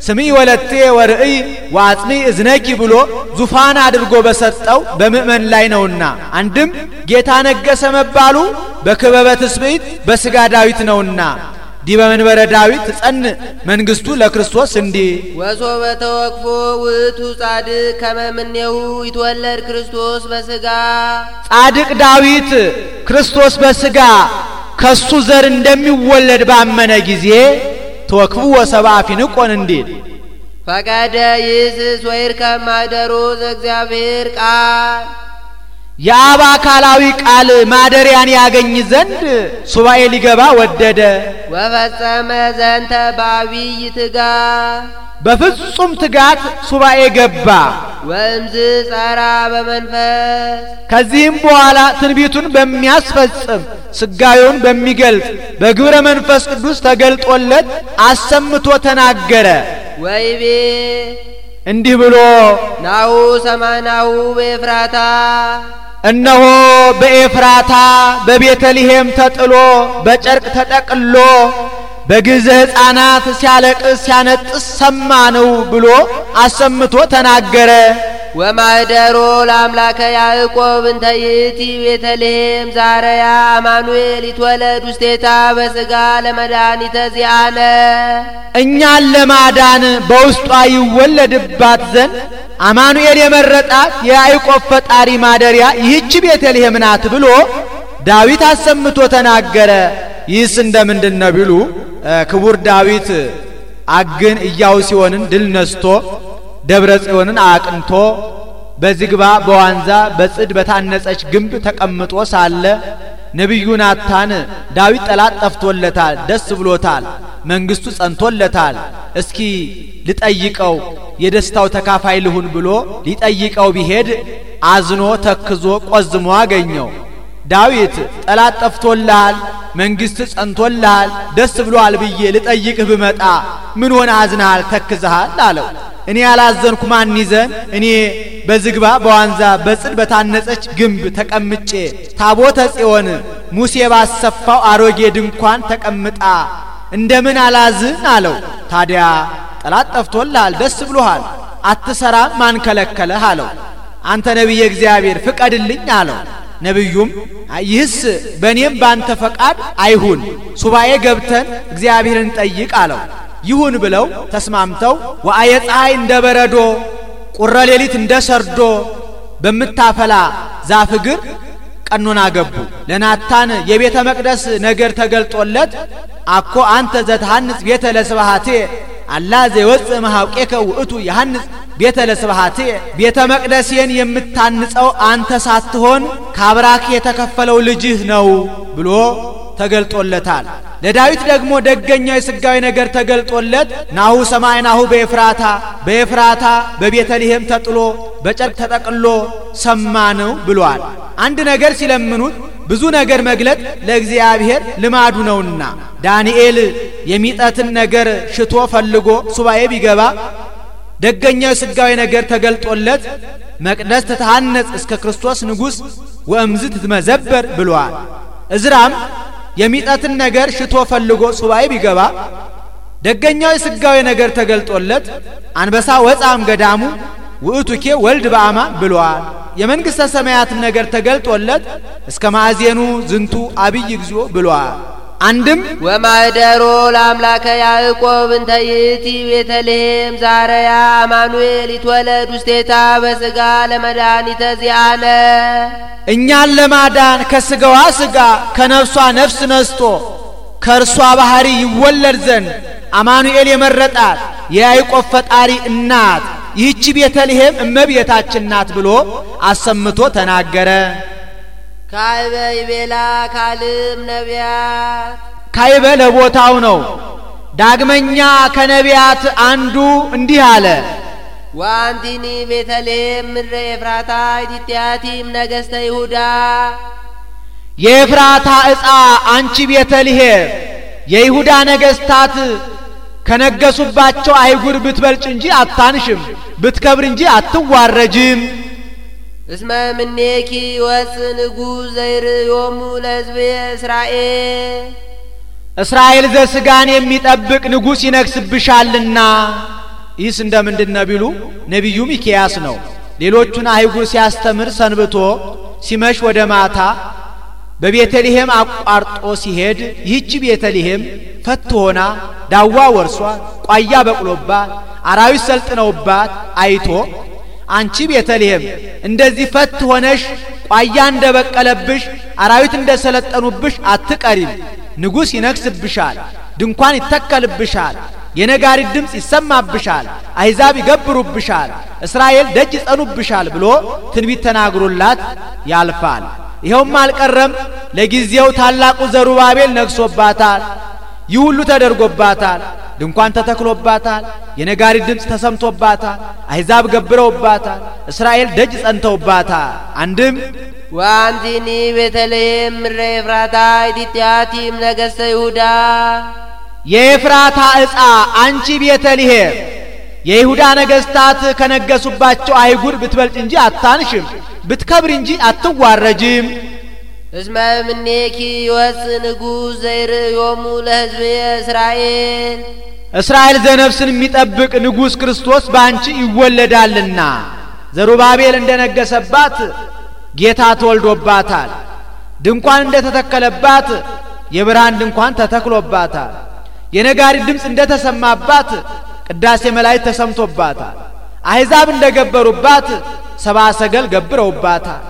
ስምዒ ወለቴ ወርእይ ወአጽኒ እዝነኪ ብሎ ዙፋን አድርጎ በሰጠው በምእመን ላይ ነውና አንድም ጌታ ነገሰ መባሉ በክበበ ትስብእት በስጋ ዳዊት ነውና ዲበ መንበረ ዳዊት ጸን መንግስቱ ለክርስቶስ እንዲ ወሶበ ተወክፎ ውእቱ ጻድቅ ከመምኔው ይትወለድ ክርስቶስ በስጋ ጻድቅ ዳዊት ክርስቶስ በስጋ ከሱ ዘር እንደሚወለድ ባመነ ጊዜ ተወክፉ ወሰብአ ፊንቆን እንዲል ፈቀደ ይስስ ወይርከብ ማኅደሮ ዘእግዚአብሔር ቃል የአብ አካላዊ ቃል ማደሪያን ያገኝ ዘንድ ሱባኤ ሊገባ ወደደ። ወፈጸመ ዘንተ በአብይ ትጋት በፍጹም ትጋት ሱባኤ ገባ። ወእምዝ ጸራ በመንፈስ ከዚህም በኋላ ትንቢቱን በሚያስፈጽም ስጋዩን በሚገልጥ በግብረ መንፈስ ቅዱስ ተገልጦለት አሰምቶ ተናገረ። ወይቤ እንዲህ ብሎ ናሁ ሰማናሁ በኤፍራታ እነሆ በኤፍራታ በቤተልሔም ተጥሎ በጨርቅ ተጠቅሎ በግዘ ሕፃናት ሲያለቅስ ሲያነጥስ ሰማነው ብሎ አሰምቶ ተናገረ። ወማህደሮ ለአምላከ ያዕቆብ እንተ ይእቲ ቤተልሔም ዛረያ አማኑኤል ይትወለድ ውስቴታ በሥጋ ለመድኃኒተ ዚአነ እኛን ለማዳን በውስጧ ይወለድባት ዘንድ አማኑኤል የመረጣት የያዕቆብ ፈጣሪ ማደሪያ ይህች ቤተልሔም ናት ብሎ ዳዊት አሰምቶ ተናገረ። ይህስ እንደምንድነው ቢሉ ክቡር ዳዊት አግን ኢያቡስን ድል ነስቶ ደብረ ጽዮንን አቅንቶ በዝግባ በዋንዛ በጽድ በታነጸች ግንብ ተቀምጦ ሳለ ነብዩ ናታን ዳዊት ጠላት ጠፍቶለታል፣ ደስ ብሎታል፣ መንግስቱ ጸንቶለታል፣ እስኪ ልጠይቀው የደስታው ተካፋይ ልሁን ብሎ ሊጠይቀው ቢሄድ አዝኖ ተክዞ ቆዝሞ አገኘው። ዳዊት ጠላት ጠፍቶልሃል፣ መንግስት ጸንቶልሃል፣ ደስ ብሎሃል ብዬ ልጠይቅህ ብመጣ ምን ሆነ አዝነሃል ተክዘሃል አለው። እኔ ያላዘንኩ ማን ይዘን? እኔ በዝግባ በዋንዛ በጽድ በታነጸች ግንብ ተቀምጬ ታቦተ ጽዮን ሙሴ ባሰፋው አሮጌ ድንኳን ተቀምጣ እንደምን አላዝን አለው። ታዲያ ጠላት ጠፍቶልሃል፣ ደስ ብሎሃል፣ አትሰራም፣ ማን ከለከለህ አለው። አንተ ነቢየ እግዚአብሔር ፍቀድልኝ አለው። ነብዩም ይህስ በእኔም ባንተ ፈቃድ አይሁን፣ ሱባኤ ገብተን እግዚአብሔርን ጠይቅ አለው። ይሁን ብለው ተስማምተው ወአየ ፀሐይ እንደ በረዶ ቁረ ሌሊት እንደ ሰርዶ በምታፈላ ዛፍ እግር ቀኖና ገቡ። ለናታን የቤተ መቅደስ ነገር ተገልጦለት አኮ አንተ ዘትሐንጽ ቤተ ለስብሐቴ አላ ዘይወፅእ እምኀውቄከ ውእቱ ይሐንጽ ቤተ ለስብሐቴ ቤተ መቅደሴን የምታንጸው አንተ ሳትሆን ከአብራክ የተከፈለው ልጅህ ነው ብሎ ተገልጦለታል። ለዳዊት ደግሞ ደገኛው የሥጋዊ ነገር ተገልጦለት ናሁ ሰማይናሁ በኤፍራታ በቤተልሔም ተጥሎ በጨርቅ ተጠቅሎ ሰማነው ብሏል። አንድ ነገር ሲለምኑት ብዙ ነገር መግለጥ ለእግዚአብሔር ልማዱ ነውና ዳንኤል የሚጠትን ነገር ሽቶ ፈልጎ ሱባኤ ቢገባ ደገኛው የሥጋዊ ነገር ተገልጦለት መቅደስ ተታነጽ እስከ ክርስቶስ ንጉሥ ወእምዝ ትመዘበር ብሏል። እዝራም የሚጠትን ነገር ሽቶ ፈልጎ ሱባኤ ቢገባ ደገኛው የሥጋዊ ነገር ተገልጦለት አንበሳ ወጻም ገዳሙ ውእቱኬ ወልድ በአማን ብሏል። የመንግሥተ ሰማያትም ነገር ተገልጦለት እስከ ማዕዜኑ ዝንቱ አብይ እግዚኦ ብሏል። አንድም ወማህደሮ ለአምላከ ያዕቆብ እንተ ይእቲ ቤተልሔም ዛረያ አማኑኤል ይትወለድ ውስቴታ በሥጋ ለመድኃኒተ ዚአነ እኛን ለማዳን ከሥጋዋ ሥጋ ከነፍሷ ነፍስ ነስቶ ከእርሷ ባህሪ ይወለድ ዘንድ አማኑኤል የመረጣት የያዕቆብ ፈጣሪ እናት ይህች ቤተልሔም እመቤታችን ናት ብሎ አሰምቶ ተናገረ። ካይበ ይቤላ ካልም ነቢያት ካይበ ለቦታው ነው። ዳግመኛ ከነቢያት አንዱ እንዲህ አለ። ዋንቲኒ ቤተልሔም ምድረ ኤፍራታ ኢቲያቲም ነገሥተ ይሁዳ የኤፍራታ ዕፃ አንቺ ቤተልሔም የይሁዳ ነገሥታት ከነገሱባቸው አይጉር ብትበልጭ እንጂ አታንሽም፣ ብትከብር እንጂ አትዋረጅም። እስመ ምኔኪ ወፅ ንጉሥ ዘይርእዮሙ ለሕዝብ እስራኤል ዘሥጋን የሚጠብቅ ንጉሥ ይነግስብሻልና። ይህስ እንደምንድነው ቢሉ ነቢዩ ሚክያስ ነው። ሌሎቹን አይጉር ሲያስተምር ሰንብቶ ሲመሽ ወደ ማታ በቤተልሔም አቋርጦ ሲሄድ ይህች ቤተልሔም ፈት ሆና ዳዋ ወርሷት ቋያ በቅሎባት አራዊት ሰልጥነውባት አይቶ አንቺ ቤተልሔም እንደዚህ ፈት ሆነሽ ቋያ እንደበቀለብሽ አራዊት እንደሰለጠኑብሽ አትቀሪም፣ ንጉሥ ይነግስብሻል፣ ድንኳን ይተከልብሻል፣ የነጋሪት ድምፅ ይሰማብሻል፣ አሕዛብ ይገብሩብሻል፣ እስራኤል ደጅ ይጸኑብሻል ብሎ ትንቢት ተናግሮላት ያልፋል። ይኸውም አልቀረም፣ ለጊዜው ታላቁ ዘሩባቤል ነግሶባታል። ይህ ሁሉ ተደርጎባታል። ድንኳን ተተክሎባታል፣ የነጋሪት ድምፅ ተሰምቶባታል፣ አሕዛብ ገብረውባታል፣ እስራኤል ደጅ ጸንተውባታል። አንድም ዋንቲኒ ቤተልሔም ምድረ ኤፍራታ ኢቲያቲም ነገሥተ ይሁዳ የኤፍራታ ዕፃ አንቺ ቤተልሔም የይሁዳ ነገሥታት ከነገሱባቸው አይጉር ብትበልጥ እንጂ አታንሽም፣ ብትከብር እንጂ አትዋረጅም። እስመ ምኔኪ ወፅ ንጉሥ ዘይርእዮሙ ለሕዝብ እስራኤል ዘነፍስን የሚጠብቅ ንጉሥ ክርስቶስ ባንቺ ይወለዳልና። ዘሩባቤል እንደነገሰባት ጌታ ተወልዶባታል። ድንኳን እንደተተከለባት የብርሃን ድንኳን ተተክሎባታል። የነጋሪት ድምፅ እንደተሰማባት ቅዳሴ መላእክት ተሰምቶባታል። አሕዛብ እንደገበሩባት ሰብአ ሰገል ገብረውባታል።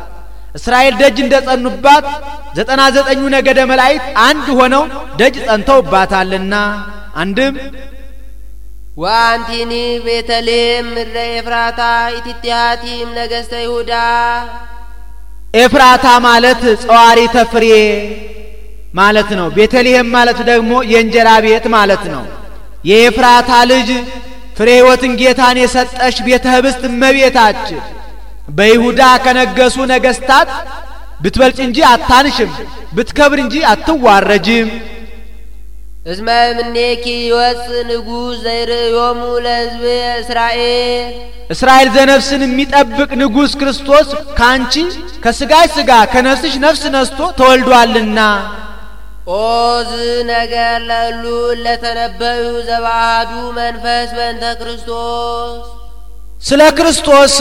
እስራኤል ደጅ እንደጸኑባት 99 ነገደ መላእክት አንድ ሆነው ደጅ ጸንተውባታልና አንድም ወአንቲኒ ቤተልሔም ምድረ ኤፍራታ ኢትቲሃቲም ነገሥተ ይሁዳ። ኤፍራታ ማለት ጸዋሪተ ፍሬ ማለት ነው። ቤተልሔም ማለት ደግሞ የእንጀራ ቤት ማለት ነው። የኤፍራታ ልጅ ፍሬ ሕይወትን ጌታን የሰጠሽ ቤተ ኅብስት እመቤታችን በይሁዳ ከነገሱ ነገሥታት ብትበልጭ እንጂ አታንሽም፣ ብትከብር እንጂ አትዋረጅም። እስመ እምኔኪ ይወፅእ ንጉሥ ዘይርእዮሙ ለሕዝብ እስራኤል። እስራኤል ዘነፍስን የሚጠብቅ ንጉሥ ክርስቶስ ካንቺ ከሥጋሽ ሥጋ ከነፍስሽ ነፍስ ነስቶ ተወልዷልና። ኦዝ ነገር ለሉ ለተነበዩ ዘባሃዱ መንፈስ በእንተ ክርስቶስ። ስለ ክርስቶስ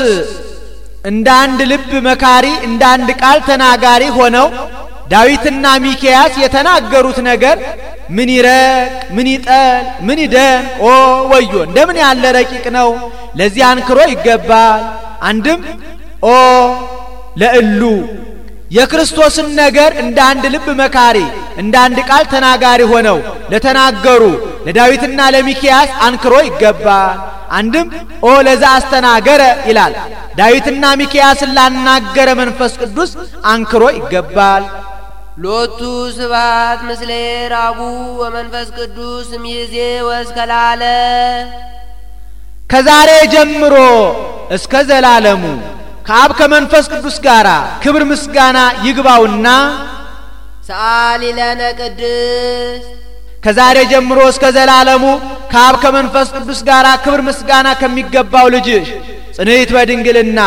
እንደ አንድ ልብ መካሪ እንደ አንድ ቃል ተናጋሪ ሆነው ዳዊትና ሚክያስ የተናገሩት ነገር ምን ይረቅ ምን ይጠል ምን ይደን ኦ ወዮ እንደምን ያለ ረቂቅ ነው። ለዚህ አንክሮ ይገባል። አንድም ኦ ለእሉ የክርስቶስን ነገር እንደ አንድ ልብ መካሪ እንደ አንድ ቃል ተናጋሪ ሆነው ለተናገሩ ለዳዊትና ለሚክያስ አንክሮ ይገባል። አንድም ኦ ለዛ አስተናገረ ይላል። ዳዊትና ሚክያስን ላናገረ መንፈስ ቅዱስ አንክሮ ይገባል። ሎቱ ስብሐት ምስለ አቡ ወመንፈስ ቅዱስ እምይእዜ ወእስከ ለዓለም። ከዛሬ ጀምሮ እስከ ዘላለሙ ከአብ ከመንፈስ ቅዱስ ጋር ክብር ምስጋና ይግባውና ሰአሊ ለነ ቅድስት። ከዛሬ ጀምሮ እስከ ዘላለሙ ከአብ ከመንፈስ ቅዱስ ጋር ክብር ምስጋና ከሚገባው ልጅሽ ጽንዕት በድንግልና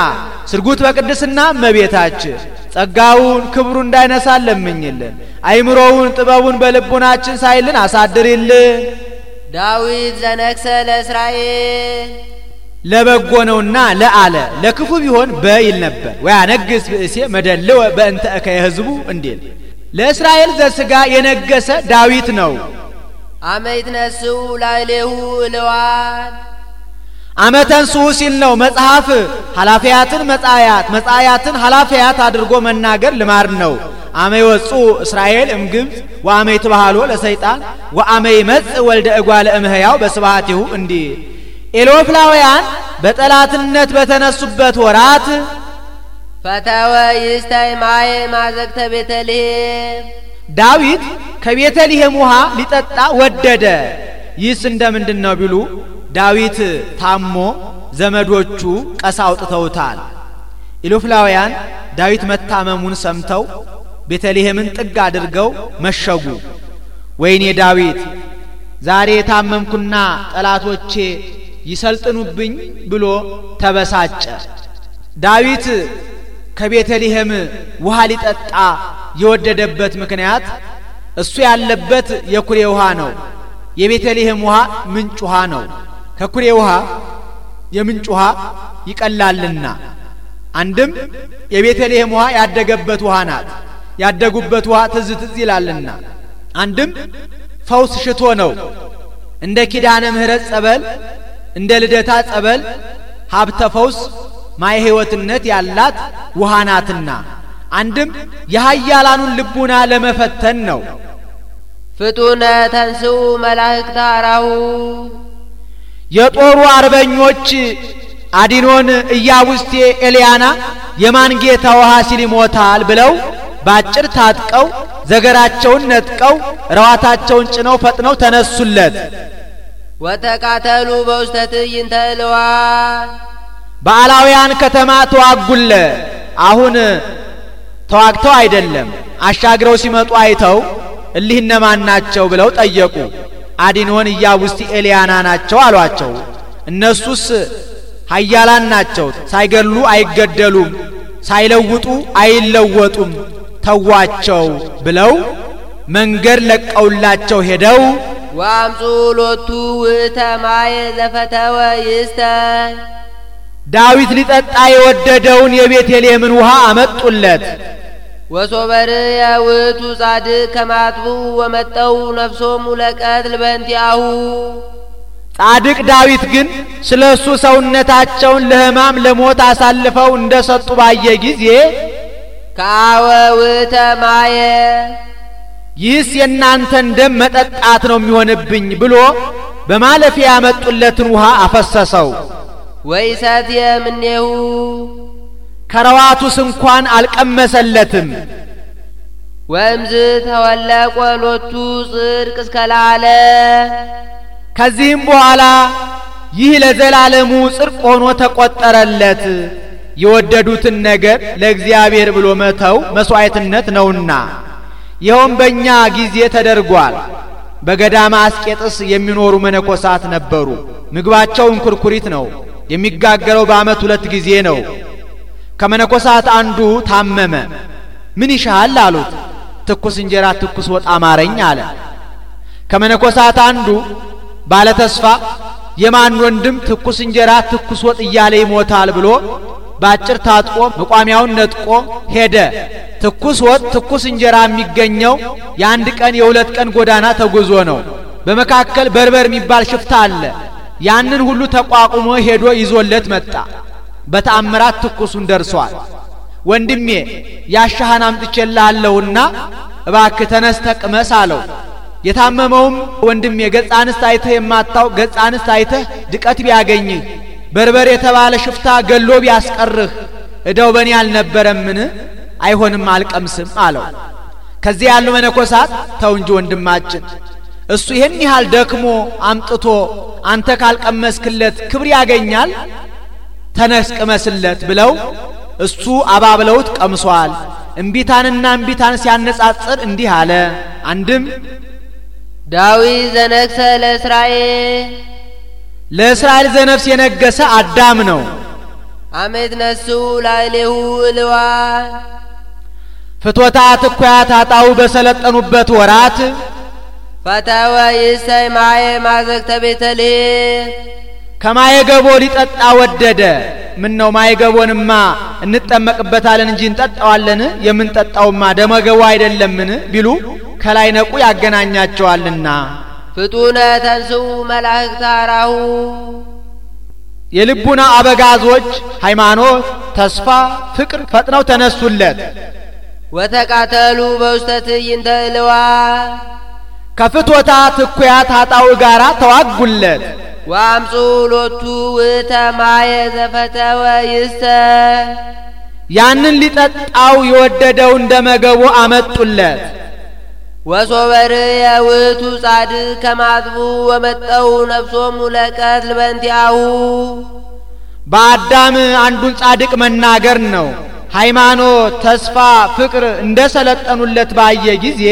ስርጉት በቅድስና እመቤታችን ጸጋውን ክብሩ እንዳይነሳ ለምኝልን። አይምሮውን ጥበቡን በልቡናችን ሳይልን አሳድሪልን። ዳዊት ዘነግሠ ለእስራኤል ለበጎ ነውና ለአለ ለክፉ ቢሆን በይል ነበር። ወያነግሥ ብእሴ መደልወ በእንተ እከየ ሕዝቡ እንዲል ለእስራኤል ዘሥጋ የነገሰ ዳዊት ነው። አመ ይትነሥኡ ላዕሌሁ እልዋን። አመ ተንሥኡ ሲል ነው መጽሐፍ ኃላፊያትን መጻያት መጻያትን ኃላፊያት አድርጎ መናገር ልማድ ነው። አመ ይወጽኡ እስራኤል እምግብፅ ወአመ ይትባሃሎ ለሰይጣን ወአመ ይመጽእ ወልደ እጓለ እምሕያው በስብሐቲሁ እንዲል ኤሎፍላውያን በጠላትነት በተነሱበት ወራት ፈተወ ይስታይ ማየ ማዘግተ ቤተልሔም። ዳዊት ከቤተልሔም ውሃ ሊጠጣ ወደደ። ይህስ እንደምንድን ነው ቢሉ ዳዊት ታሞ ዘመዶቹ ቀሳ አውጥተውታል። ኢሎፍላውያን ዳዊት መታመሙን ሰምተው ቤተልሔምን ጥግ አድርገው መሸጉ። ወይኔ ዳዊት ዛሬ ታመምኩና ጠላቶቼ ይሰልጥኑብኝ ብሎ ተበሳጨ። ዳዊት ከቤተልሔም ውሃ ሊጠጣ የወደደበት ምክንያት እሱ ያለበት የኩሬ ውሃ ነው። የቤተልሔም ውሃ ምንጭ ውሃ ነው። ከኩሬ ውሃ የምንጭ ውሃ ይቀላልና። አንድም የቤተልሔም ውሃ ያደገበት ውሃ ናት። ያደጉበት ውሃ ትዝ ትዝ ይላልና። አንድም ፈውስ ሽቶ ነው። እንደ ኪዳነ ምሕረት ጸበል እንደ ልደታ ጸበል ሀብተ ፈውስ ማየ ሕይወትነት ያላት ውሃ ናትና። አንድም የኃያላኑን ልቡና ለመፈተን ነው። ፍጡነ ተንሥኡ መላእክተ አራሁ። የጦሩ አርበኞች አዲኖን ኢያቡስቴ ኤልያና የማን ጌታ ውሃ ሲል ይሞታል ብለው ባጭር ታጥቀው ዘገራቸውን ነጥቀው ረዋታቸውን ጭነው ፈጥነው ተነሱለት። ወተቃተሉ በውስተ ትዕይንተ እልዋን። በአላውያን ከተማ ተዋጉለ። አሁን ተዋግተው አይደለም አሻግረው ሲመጡ አይተው እሊህ እነማን ናቸው ብለው ጠየቁ። አዲኖን ኢያቡስቲ ኤልያና ናቸው አሏቸው። እነሱስ ኃያላን ናቸው፣ ሳይገሉ አይገደሉም፣ ሳይለውጡ አይለወጡም፣ ተዋቸው ብለው መንገድ ለቀውላቸው ሄደው ወአምጹ ሎቱ ውእተ ማየ ዘፈተወ ይስተ። ዳዊት ሊጠጣ የወደደውን የቤተልሔምን ውሃ አመጡለት። ወሶበር ያውቱ ጻድቅ ከማጥቡ ወመጠው ነፍሶሙ ለቀትል በእንቲአሁ ጻድቅ ዳዊት ግን ስለሱ ሰውነታቸውን ለሕማም ለሞት አሳልፈው እንደሰጡ ባየ ጊዜ ካወውተ ማየ ይህስ የእናንተን ደም መጠጣት ነው የሚሆንብኝ ብሎ በማለፊያ ያመጡለትን ውሃ አፈሰሰው። ወይሰት የምኔሁ ከረዋቱስ እንኳን አልቀመሰለትም። ወእምዝ ተወለቆ ሎቱ ጽድቅ እስከላለ ከዚህም በኋላ ይህ ለዘላለሙ ጽድቅ ሆኖ ተቆጠረለት። የወደዱትን ነገር ለእግዚአብሔር ብሎ መተው መስዋዕትነት ነውና፣ ይኸውም በእኛ ጊዜ ተደርጓል። በገዳማ አስቄጥስ የሚኖሩ መነኮሳት ነበሩ። ምግባቸው እንኩርኩሪት ነው። የሚጋገረው በዓመት 2 ጊዜ ነው። ከመነኮሳት አንዱ ታመመ። ምን ይሻል አሉት። ትኩስ እንጀራ ትኩስ ወጥ አማረኝ አለ። ከመነኮሳት አንዱ ባለ ተስፋ የማን ወንድም ትኩስ እንጀራ ትኩስ ወጥ እያለ ይሞታል ብሎ ባጭር ታጥቆ መቋሚያውን ነጥቆ ሄደ። ትኩስ ወጥ ትኩስ እንጀራ የሚገኘው የ1 ቀን የ2 ቀን ጎዳና ተጉዞ ነው። በመካከል በርበር የሚባል ሽፍታ አለ። ያንን ሁሉ ተቋቁሞ ሄዶ ይዞለት መጣ። በተአምራት ትኩሱን ደርሷል። ወንድሜ ያሻህን አምጥቼልሃለሁና እባክህ ተነስተህ ቅመስ አለው። የታመመውም ወንድሜ ገጸ አንስት አይተህ የማታው ገጸ አንስት አይተህ ድቀት ቢያገኝህ በርበር የተባለ ሽፍታ ገሎ ቢያስቀርህ እዳው በኔ አልነበረምን? አይሆንም አልቀምስም አለው። ከዚህ ያሉ መነኮሳት ተው እንጂ ወንድማችን እሱ ይሄን ያህል ደክሞ አምጥቶ አንተ ካልቀመስክለት ክብር ያገኛል፣ ተነስ ቅመስለት ብለው እሱ አባብለውት ቀምሷል። እምቢታንና እምቢታን ሲያነጻጽር እንዲህ አለ። አንድም ዳዊት ዘነግሰ ለእስራኤል ዘነፍስ የነገሰ አዳም ነው። አመት ነሱ ላይሌሁ እልዋ ፍትወታት እኩያት አጣው በሰለጠኑበት ወራት ፈተወ ይሰይ ማየ ማዘግተ ቤተልሔም ከማየገቦ ሊጠጣ ወደደ። ምን ነው ማየገቦንማ እንጠመቅበታለን እንጂ እንጠጣዋለን? የምንጠጣውማ ደመገቦ አይደለምን ቢሉ ከላይ ነቁ ያገናኛቸዋልና። ፍጡነ ተንሥኡ መላእክት አራሁ የልቡና አበጋዞች ሃይማኖት፣ ተስፋ፣ ፍቅር ፈጥነው ተነሱለት። ወተቃተሉ በውስተ ትዕይንተ እልዋ ከፍትወታት እኩያት አጣው ጋራ ተዋጉለት። ወአምጹ ሎቱ ውእተ ማየ ዘፈተወ ይስተ ያንን ሊጠጣው የወደደው እንደመገቦ አመጡለት። ወሶበር የውእቱ ጻድቅ ከማጥቡ ወመጠው ነፍሶሙ ለቀትል በእንቲአሁ በአዳም አንዱን ጻድቅ መናገር ነው። ሃይማኖት፣ ተስፋ፣ ፍቅር እንደሰለጠኑለት ባየ ጊዜ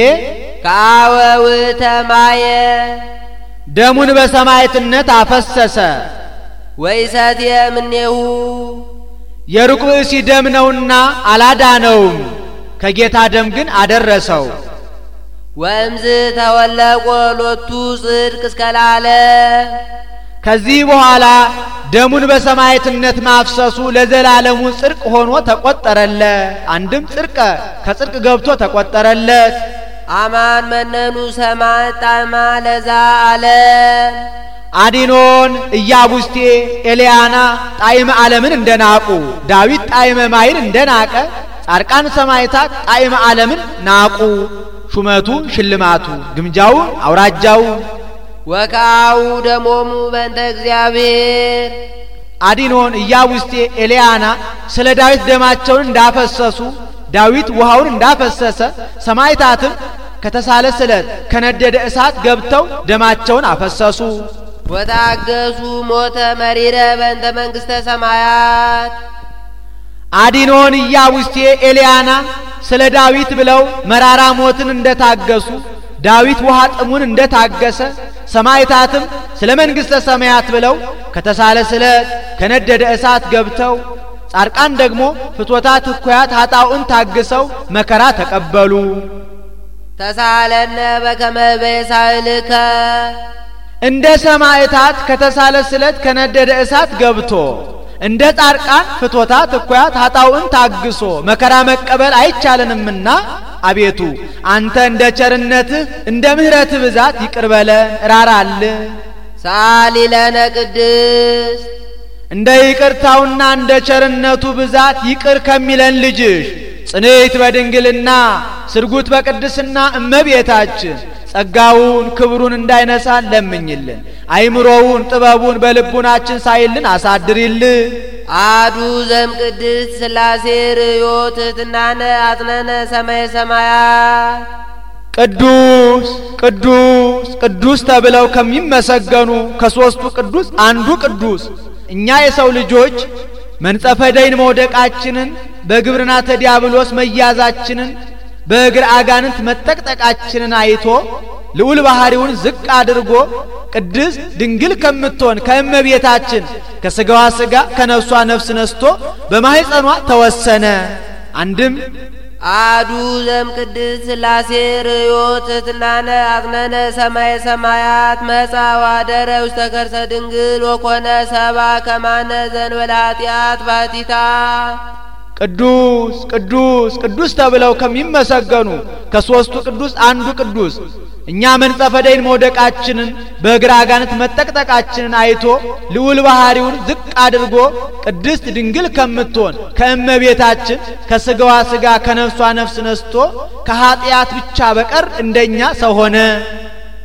ከአወ ውእተ ማየ ደሙን በሰማዕትነት አፈሰሰ። ወይሰትየ እምኔሁ የሩቅ ብእሲ ደም ነውና አላዳነውም፣ ከጌታ ደም ግን አደረሰው። ወእምዝ ተወለቆ ሎቱ ጽድቅ እስከላለ ከዚህ በኋላ ደሙን በሰማዕትነት ማፍሰሱ ለዘላለሙ ጽድቅ ሆኖ ተቆጠረለት። አንድም ጽድቀ ከጽድቅ ገብቶ ተቆጠረለት። አማን መነኑ ሰማዕ ጣዕማ ለዛ አለ አዲኖን ኢያቡስቴ ኤልያና ጣዕመ ዓለምን እንደናቁ ዳዊት ጣዕመ ማይን እንደናቀ ጻድቃን ሰማዕታት ጣዕመ ዓለምን ናቁ። ሹመቱ ሽልማቱ ግምጃው አውራጃው ወካው ደሞሙ በእንተ እግዚአብሔር አዲኖን ኢያቡስቴ ኤልያና ስለ ዳዊት ደማቸውን እንዳፈሰሱ ዳዊት ውሃውን እንዳፈሰሰ ሰማዕታትም ከተሳለ ስለት ከነደደ እሳት ገብተው ደማቸውን አፈሰሱ። ወታገሱ ሞተ መሪረ በእንተ መንግሥተ ሰማያት አዲኖን ኢያቡስቴ ኤልያና ስለ ዳዊት ብለው መራራ ሞትን እንደታገሱ ዳዊት ውሃ ጥሙን እንደታገሰ ሰማዕታትም ስለ መንግሥተ ሰማያት ብለው ከተሳለ ስለት ከነደደ እሳት ገብተው ጻድቃን ደግሞ ፍትወታት እኩያት ኃጣኡን ታግሰው መከራ ተቀበሉ። ተሳለነ በከመ በሳልከ እንደ ሰማዕታት ከተሳለ ስለት ከነደደ እሳት ገብቶ እንደ ጻድቃን ፍቶታት እኩያት ኃጣውእን ታግሶ መከራ መቀበል አይቻለንምና አቤቱ አንተ እንደ ቸርነትህ እንደ ምሕረትህ ብዛት ይቅር በለን ራራልን። ሳሊ ለነ ቅድስት እንደ ይቅርታውና እንደ ቸርነቱ ብዛት ይቅር ከሚለን ልጅሽ ጽንዕት በድንግልና ስርጉት በቅድስና እመቤታችን ጸጋውን ክብሩን እንዳይነሳን ለምኝልን። አይምሮውን ጥበቡን በልቡናችን ሳይልን አሳድሪልን። አዱ ዘም ቅድስት ሥላሴ ርዮት ትሕትናነ አጽነነ ሰማየ ሰማያት ቅዱስ ቅዱስ ቅዱስ ተብለው ከሚመሰገኑ ከሦስቱ ቅዱስ አንዱ ቅዱስ እኛ የሰው ልጆች መንጸፈ ደይን መውደቃችንን በግብርናተ ዲያብሎስ መያዛችንን በእግር አጋንንት መጠቅጠቃችንን አይቶ ልዑል ባህሪውን ዝቅ አድርጎ ቅድስት ድንግል ከምትሆን ከእመቤታችን ከሥጋዋ ሥጋ ከነፍሷ ነፍስ ነስቶ በማኅፀኗ ተወሰነ። አንድም አዱ ዘም ቅድስት ሥላሴ ርዮት ትሕትናነ አጽነነ ሰማየ ሰማያት መጻ ወአደረ ውስተ ከርሰ ድንግል ወኮነ ሰብአ ከማነ ዘእንበለ ኃጢአት ባሕቲታ ቅዱስ ቅዱስ ቅዱስ ተብለው ከሚመሰገኑ ከሦስቱ ቅዱስ አንዱ ቅዱስ እኛ መንጸፈ ደይን መውደቃችንን በእግር አጋንንት መጠቅጠቃችንን አይቶ ልዑል ባህሪውን ዝቅ አድርጎ ቅድስት ድንግል ከምትሆን ከእመቤታችን ከሥጋዋ ሥጋ ከነፍሷ ነፍስ ነስቶ ከኃጢአት ብቻ በቀር እንደኛ ሰው ሆነ።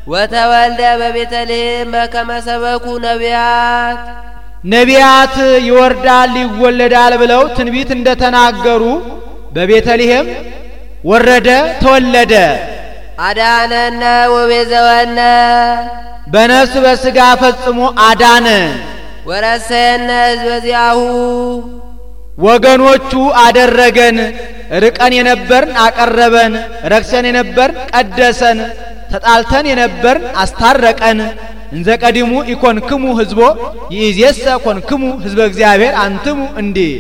ወተወልደ በቤተልሔም በከመ ሰበኩ ነቢያት ነቢያት ይወርዳል ይወለዳል ብለው ትንቢት እንደተናገሩ በቤተልሔም ወረደ ተወለደ። አዳነነ ወቤዘወነ በነፍስ በሥጋ ፈጽሞ አዳነን። ወረሰየነ ሕዝበ ዚአሁ ወገኖቹ አደረገን። ርቀን የነበርን አቀረበን፣ ረክሰን የነበርን ቀደሰን፣ ተጣልተን የነበርን አስታረቀን። እንዘ ቀዲሙ ኢኮንክሙ ሕዝቦ ይእዜሰ ኮንክሙ ሕዝበ እግዚአብሔር አንትሙ እንዲህ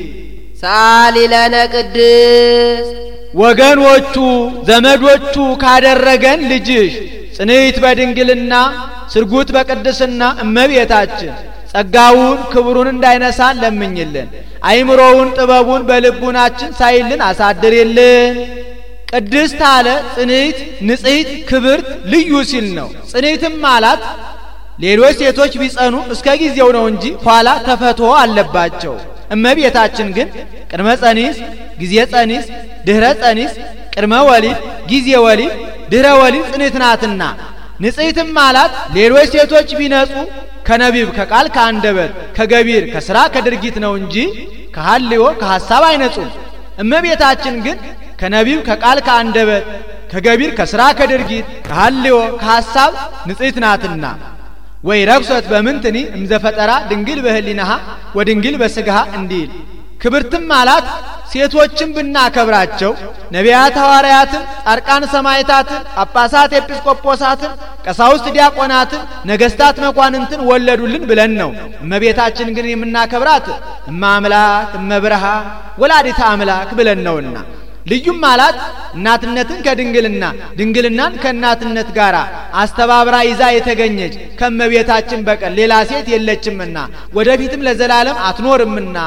ሳሊ ለነ ቅድስት ወገኖቹ ዘመዶቹ ካደረገን ልጅሽ ጽንዕት በድንግልና ስርጉት በቅድስና እመቤታችን ጸጋውን ክብሩን እንዳይነሳን ለምኝልን። አይምሮውን ጥበቡን በልቡናችን ሳይልን አሳድሪልን። ቅድስት አለ ጽንዕት ንጽሕት ክብርት ልዩ ሲል ነው። ጽንዕትም ማለት ሌሎች ሴቶች ቢጸኑ እስከ ጊዜው ነው እንጂ ኋላ ተፈትሖ አለባቸው። እመቤታችን ግን ቅድመ ጸኒስ ጊዜ ጸኒስ ድህረ ጸኒስ ቅድመ ወሊድ ጊዜ ወሊድ ድህረ ወሊድ ጽንዕት ናትና ንጽሕትም ማለት ሌሎች ሴቶች ቢነጹ ከነቢብ ከቃል ከአንደበት ከገቢር ከሥራ ከድርጊት ነው እንጂ ከሐልዮ ከሐሳብ አይነጹም። እመቤታችን ግን ከነቢብ ከቃል ከአንደበት ከገቢር ከሥራ ከድርጊት ከሐልዮ ከሐሳብ ንጽሕት ናትና ወይ ረክሰት በምንትኒ እምዘፈጠራ ድንግል በህሊናሃ ወድንግል በሥጋሃ እንዲል ክብርትም ማለት ሴቶችን ብናከብራቸው ነቢያት ሐዋርያትን ጻድቃን ሰማዕታትን ጳጳሳት ኤጲስቆጶሳትን ቀሳውስት ዲያቆናትን ነገሥታት መኳንንትን ወለዱልን ብለን ነው። እመቤታችን ግን የምናከብራት እመ አምላክ እመ ብርሃን ወላዲተ አምላክ ብለን ነውና ልዩም ማለት እናትነትን ከድንግልና ድንግልናን ከእናትነት ጋር አስተባብራ ይዛ የተገኘች ከእመቤታችን በቀር ሌላ ሴት የለችምና ወደፊትም ለዘላለም አትኖርምና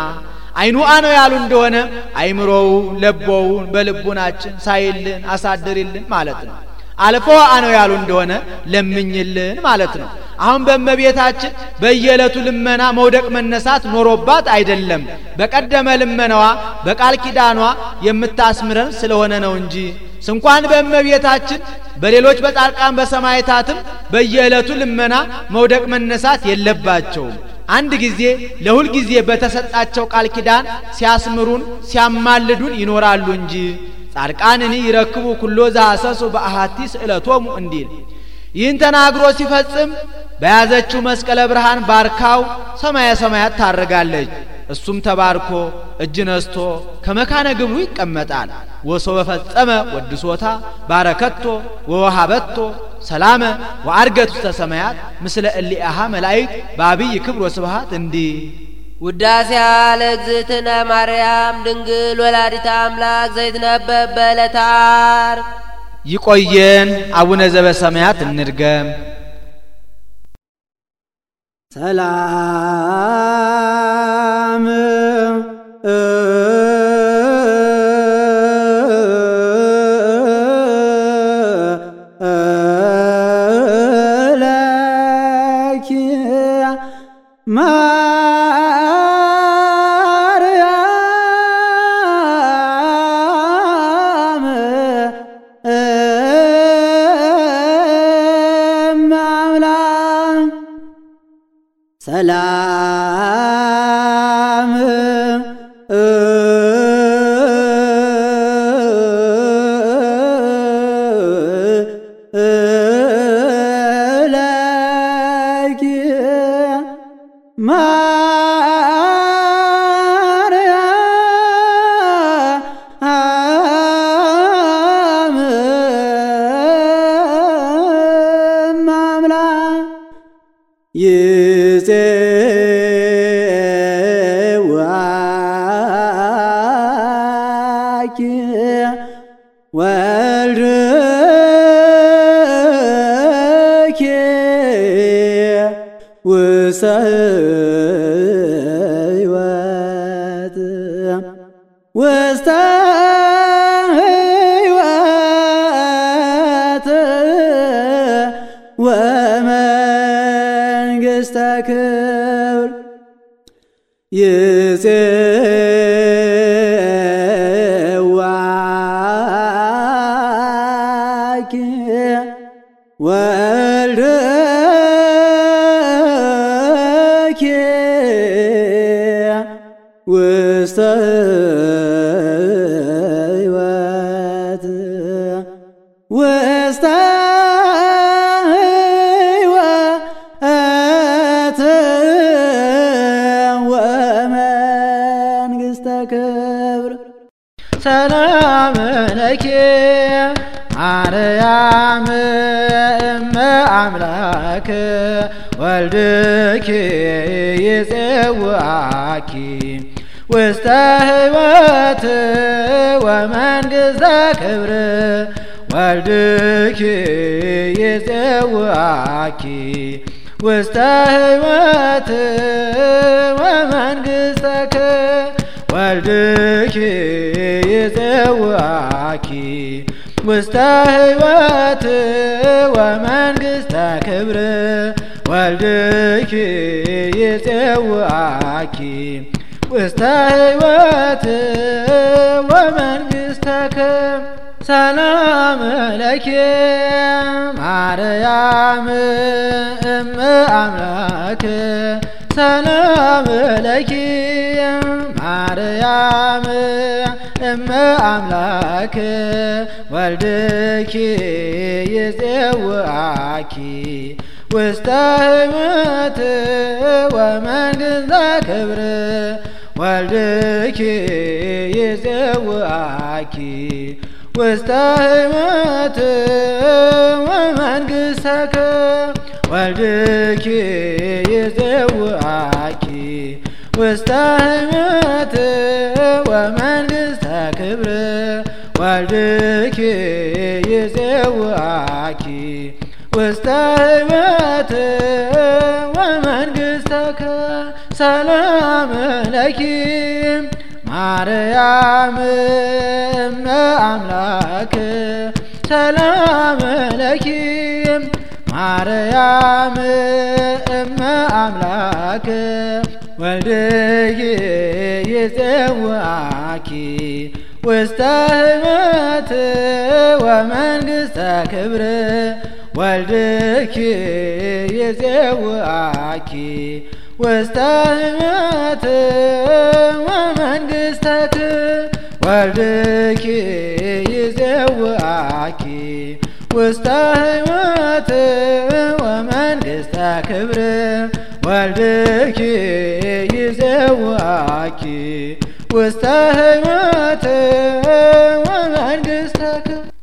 አይኑአ ነው ያሉ እንደሆነ አይምሮውን ለቦውን በልቡናችን ሳይልን አሳድሪልን ማለት ነው። አልፎ አነው ያሉ እንደሆነ ለምኝልን ማለት ነው። አሁን በእመቤታችን በየዕለቱ ልመና መውደቅ መነሳት ኖሮባት አይደለም። በቀደመ ልመናዋ በቃል ኪዳኗ የምታስምረን ስለሆነ ነው እንጂ እንኳን በእመቤታችን በሌሎች በጻድቃን በሰማዕታትም በየዕለቱ ልመና መውደቅ መነሳት የለባቸውም። አንድ ጊዜ ለሁል ጊዜ በተሰጣቸው ቃል ኪዳን ሲያስምሩን ሲያማልዱን ይኖራሉ እንጂ ጻድቃንኒ ይረክቡ ኩሎ ዘሐሰሱ በአሐቲ ስእለቶሙ እንዲል ይህን ተናግሮ ሲፈጽም በያዘችው መስቀለ ብርሃን ባርካው ሰማየ ሰማያት ታርጋለች። እሱም ተባርኮ እጅ ነስቶ ከመካነ ግብሩ ይቀመጣል። ወሶ በፈጸመ ወድሶታ ባረከቶ ወወሃበቶ ሰላመ ወአርገት ውስተ ሰማያት ምስለ እሊአሃ መላእክት በአብይ ክብር ወስብሐት እንዲህ ውዳሴ ለእግዝእትነ ማርያም ድንግል ወላዲተ አምላክ ዘይትነበብ በዕለተ ዓርብ። ይቆየን። አቡነ ዘበሰማያት እንድገም። ሰላም ሰላም ለኪ ማርያም አምላክ ሰላም ለኪ ማርያም አምላክ ይፄዋኪ ወልድኪ ውስተ ሕይወት ውስተ ሕይወት ወመንግሥተ ክብር ይፄዋኪ ወልድኪ ውስተ ሕይወት ውስተ ሕይወት ወመንግሥተ ክብር ሰላም ለኪ ማርያም እመ አምላክ ወልድኪ ይፄዋኪ ውስተ ሕይወት ወመንግሥተ ክብር ወልድኪ ይፄዋኪ ውስተ ሕይወት ወመንግሥተ ክብር ወልድኪ ይፄዋኪ ውስተ ሕይወት ወመንግሥተ ክብር ወልድኪ ይፄዋኪ ውስተ ሕይወት ወመንግሥተ ክብር ሰላም ለኪ ማርያም እመ አምላክ ሰላም ለኪ ማርያም እመ አምላክ ወልድኪ ይፄዋኪ ውስተ ሕይወት ወመንግሥተ ክብር ወልድኪ ይፄዋኪ ውስተ ሕይወት ወመንግሥተ ክብር ወልድኪ ይፄዋኪ ውስተ ሕይወት ወመንግሥተ ክብር ወልድኪ ይፄዋኪ ውስተ ሕይወት ወመንግሥተ ክብር ሰላም ለኪ ማርያም እመ አምላክ ሰላም ለኪ ማርያም እመ አምላክ ወልድኪ ይፄዋኪ ውስተ ሕይወት ወመንግሥተ ክብር ወልድኪ ይፄዋኪ ውስተ ሕይወት ወመንግሥተ ክብር ወልድኪ ይፄዋኪ ውስተ ሕይወት ወመንግሥተ ክብር ወልድኪ ይፄዋኪ ውስተ ሕይወት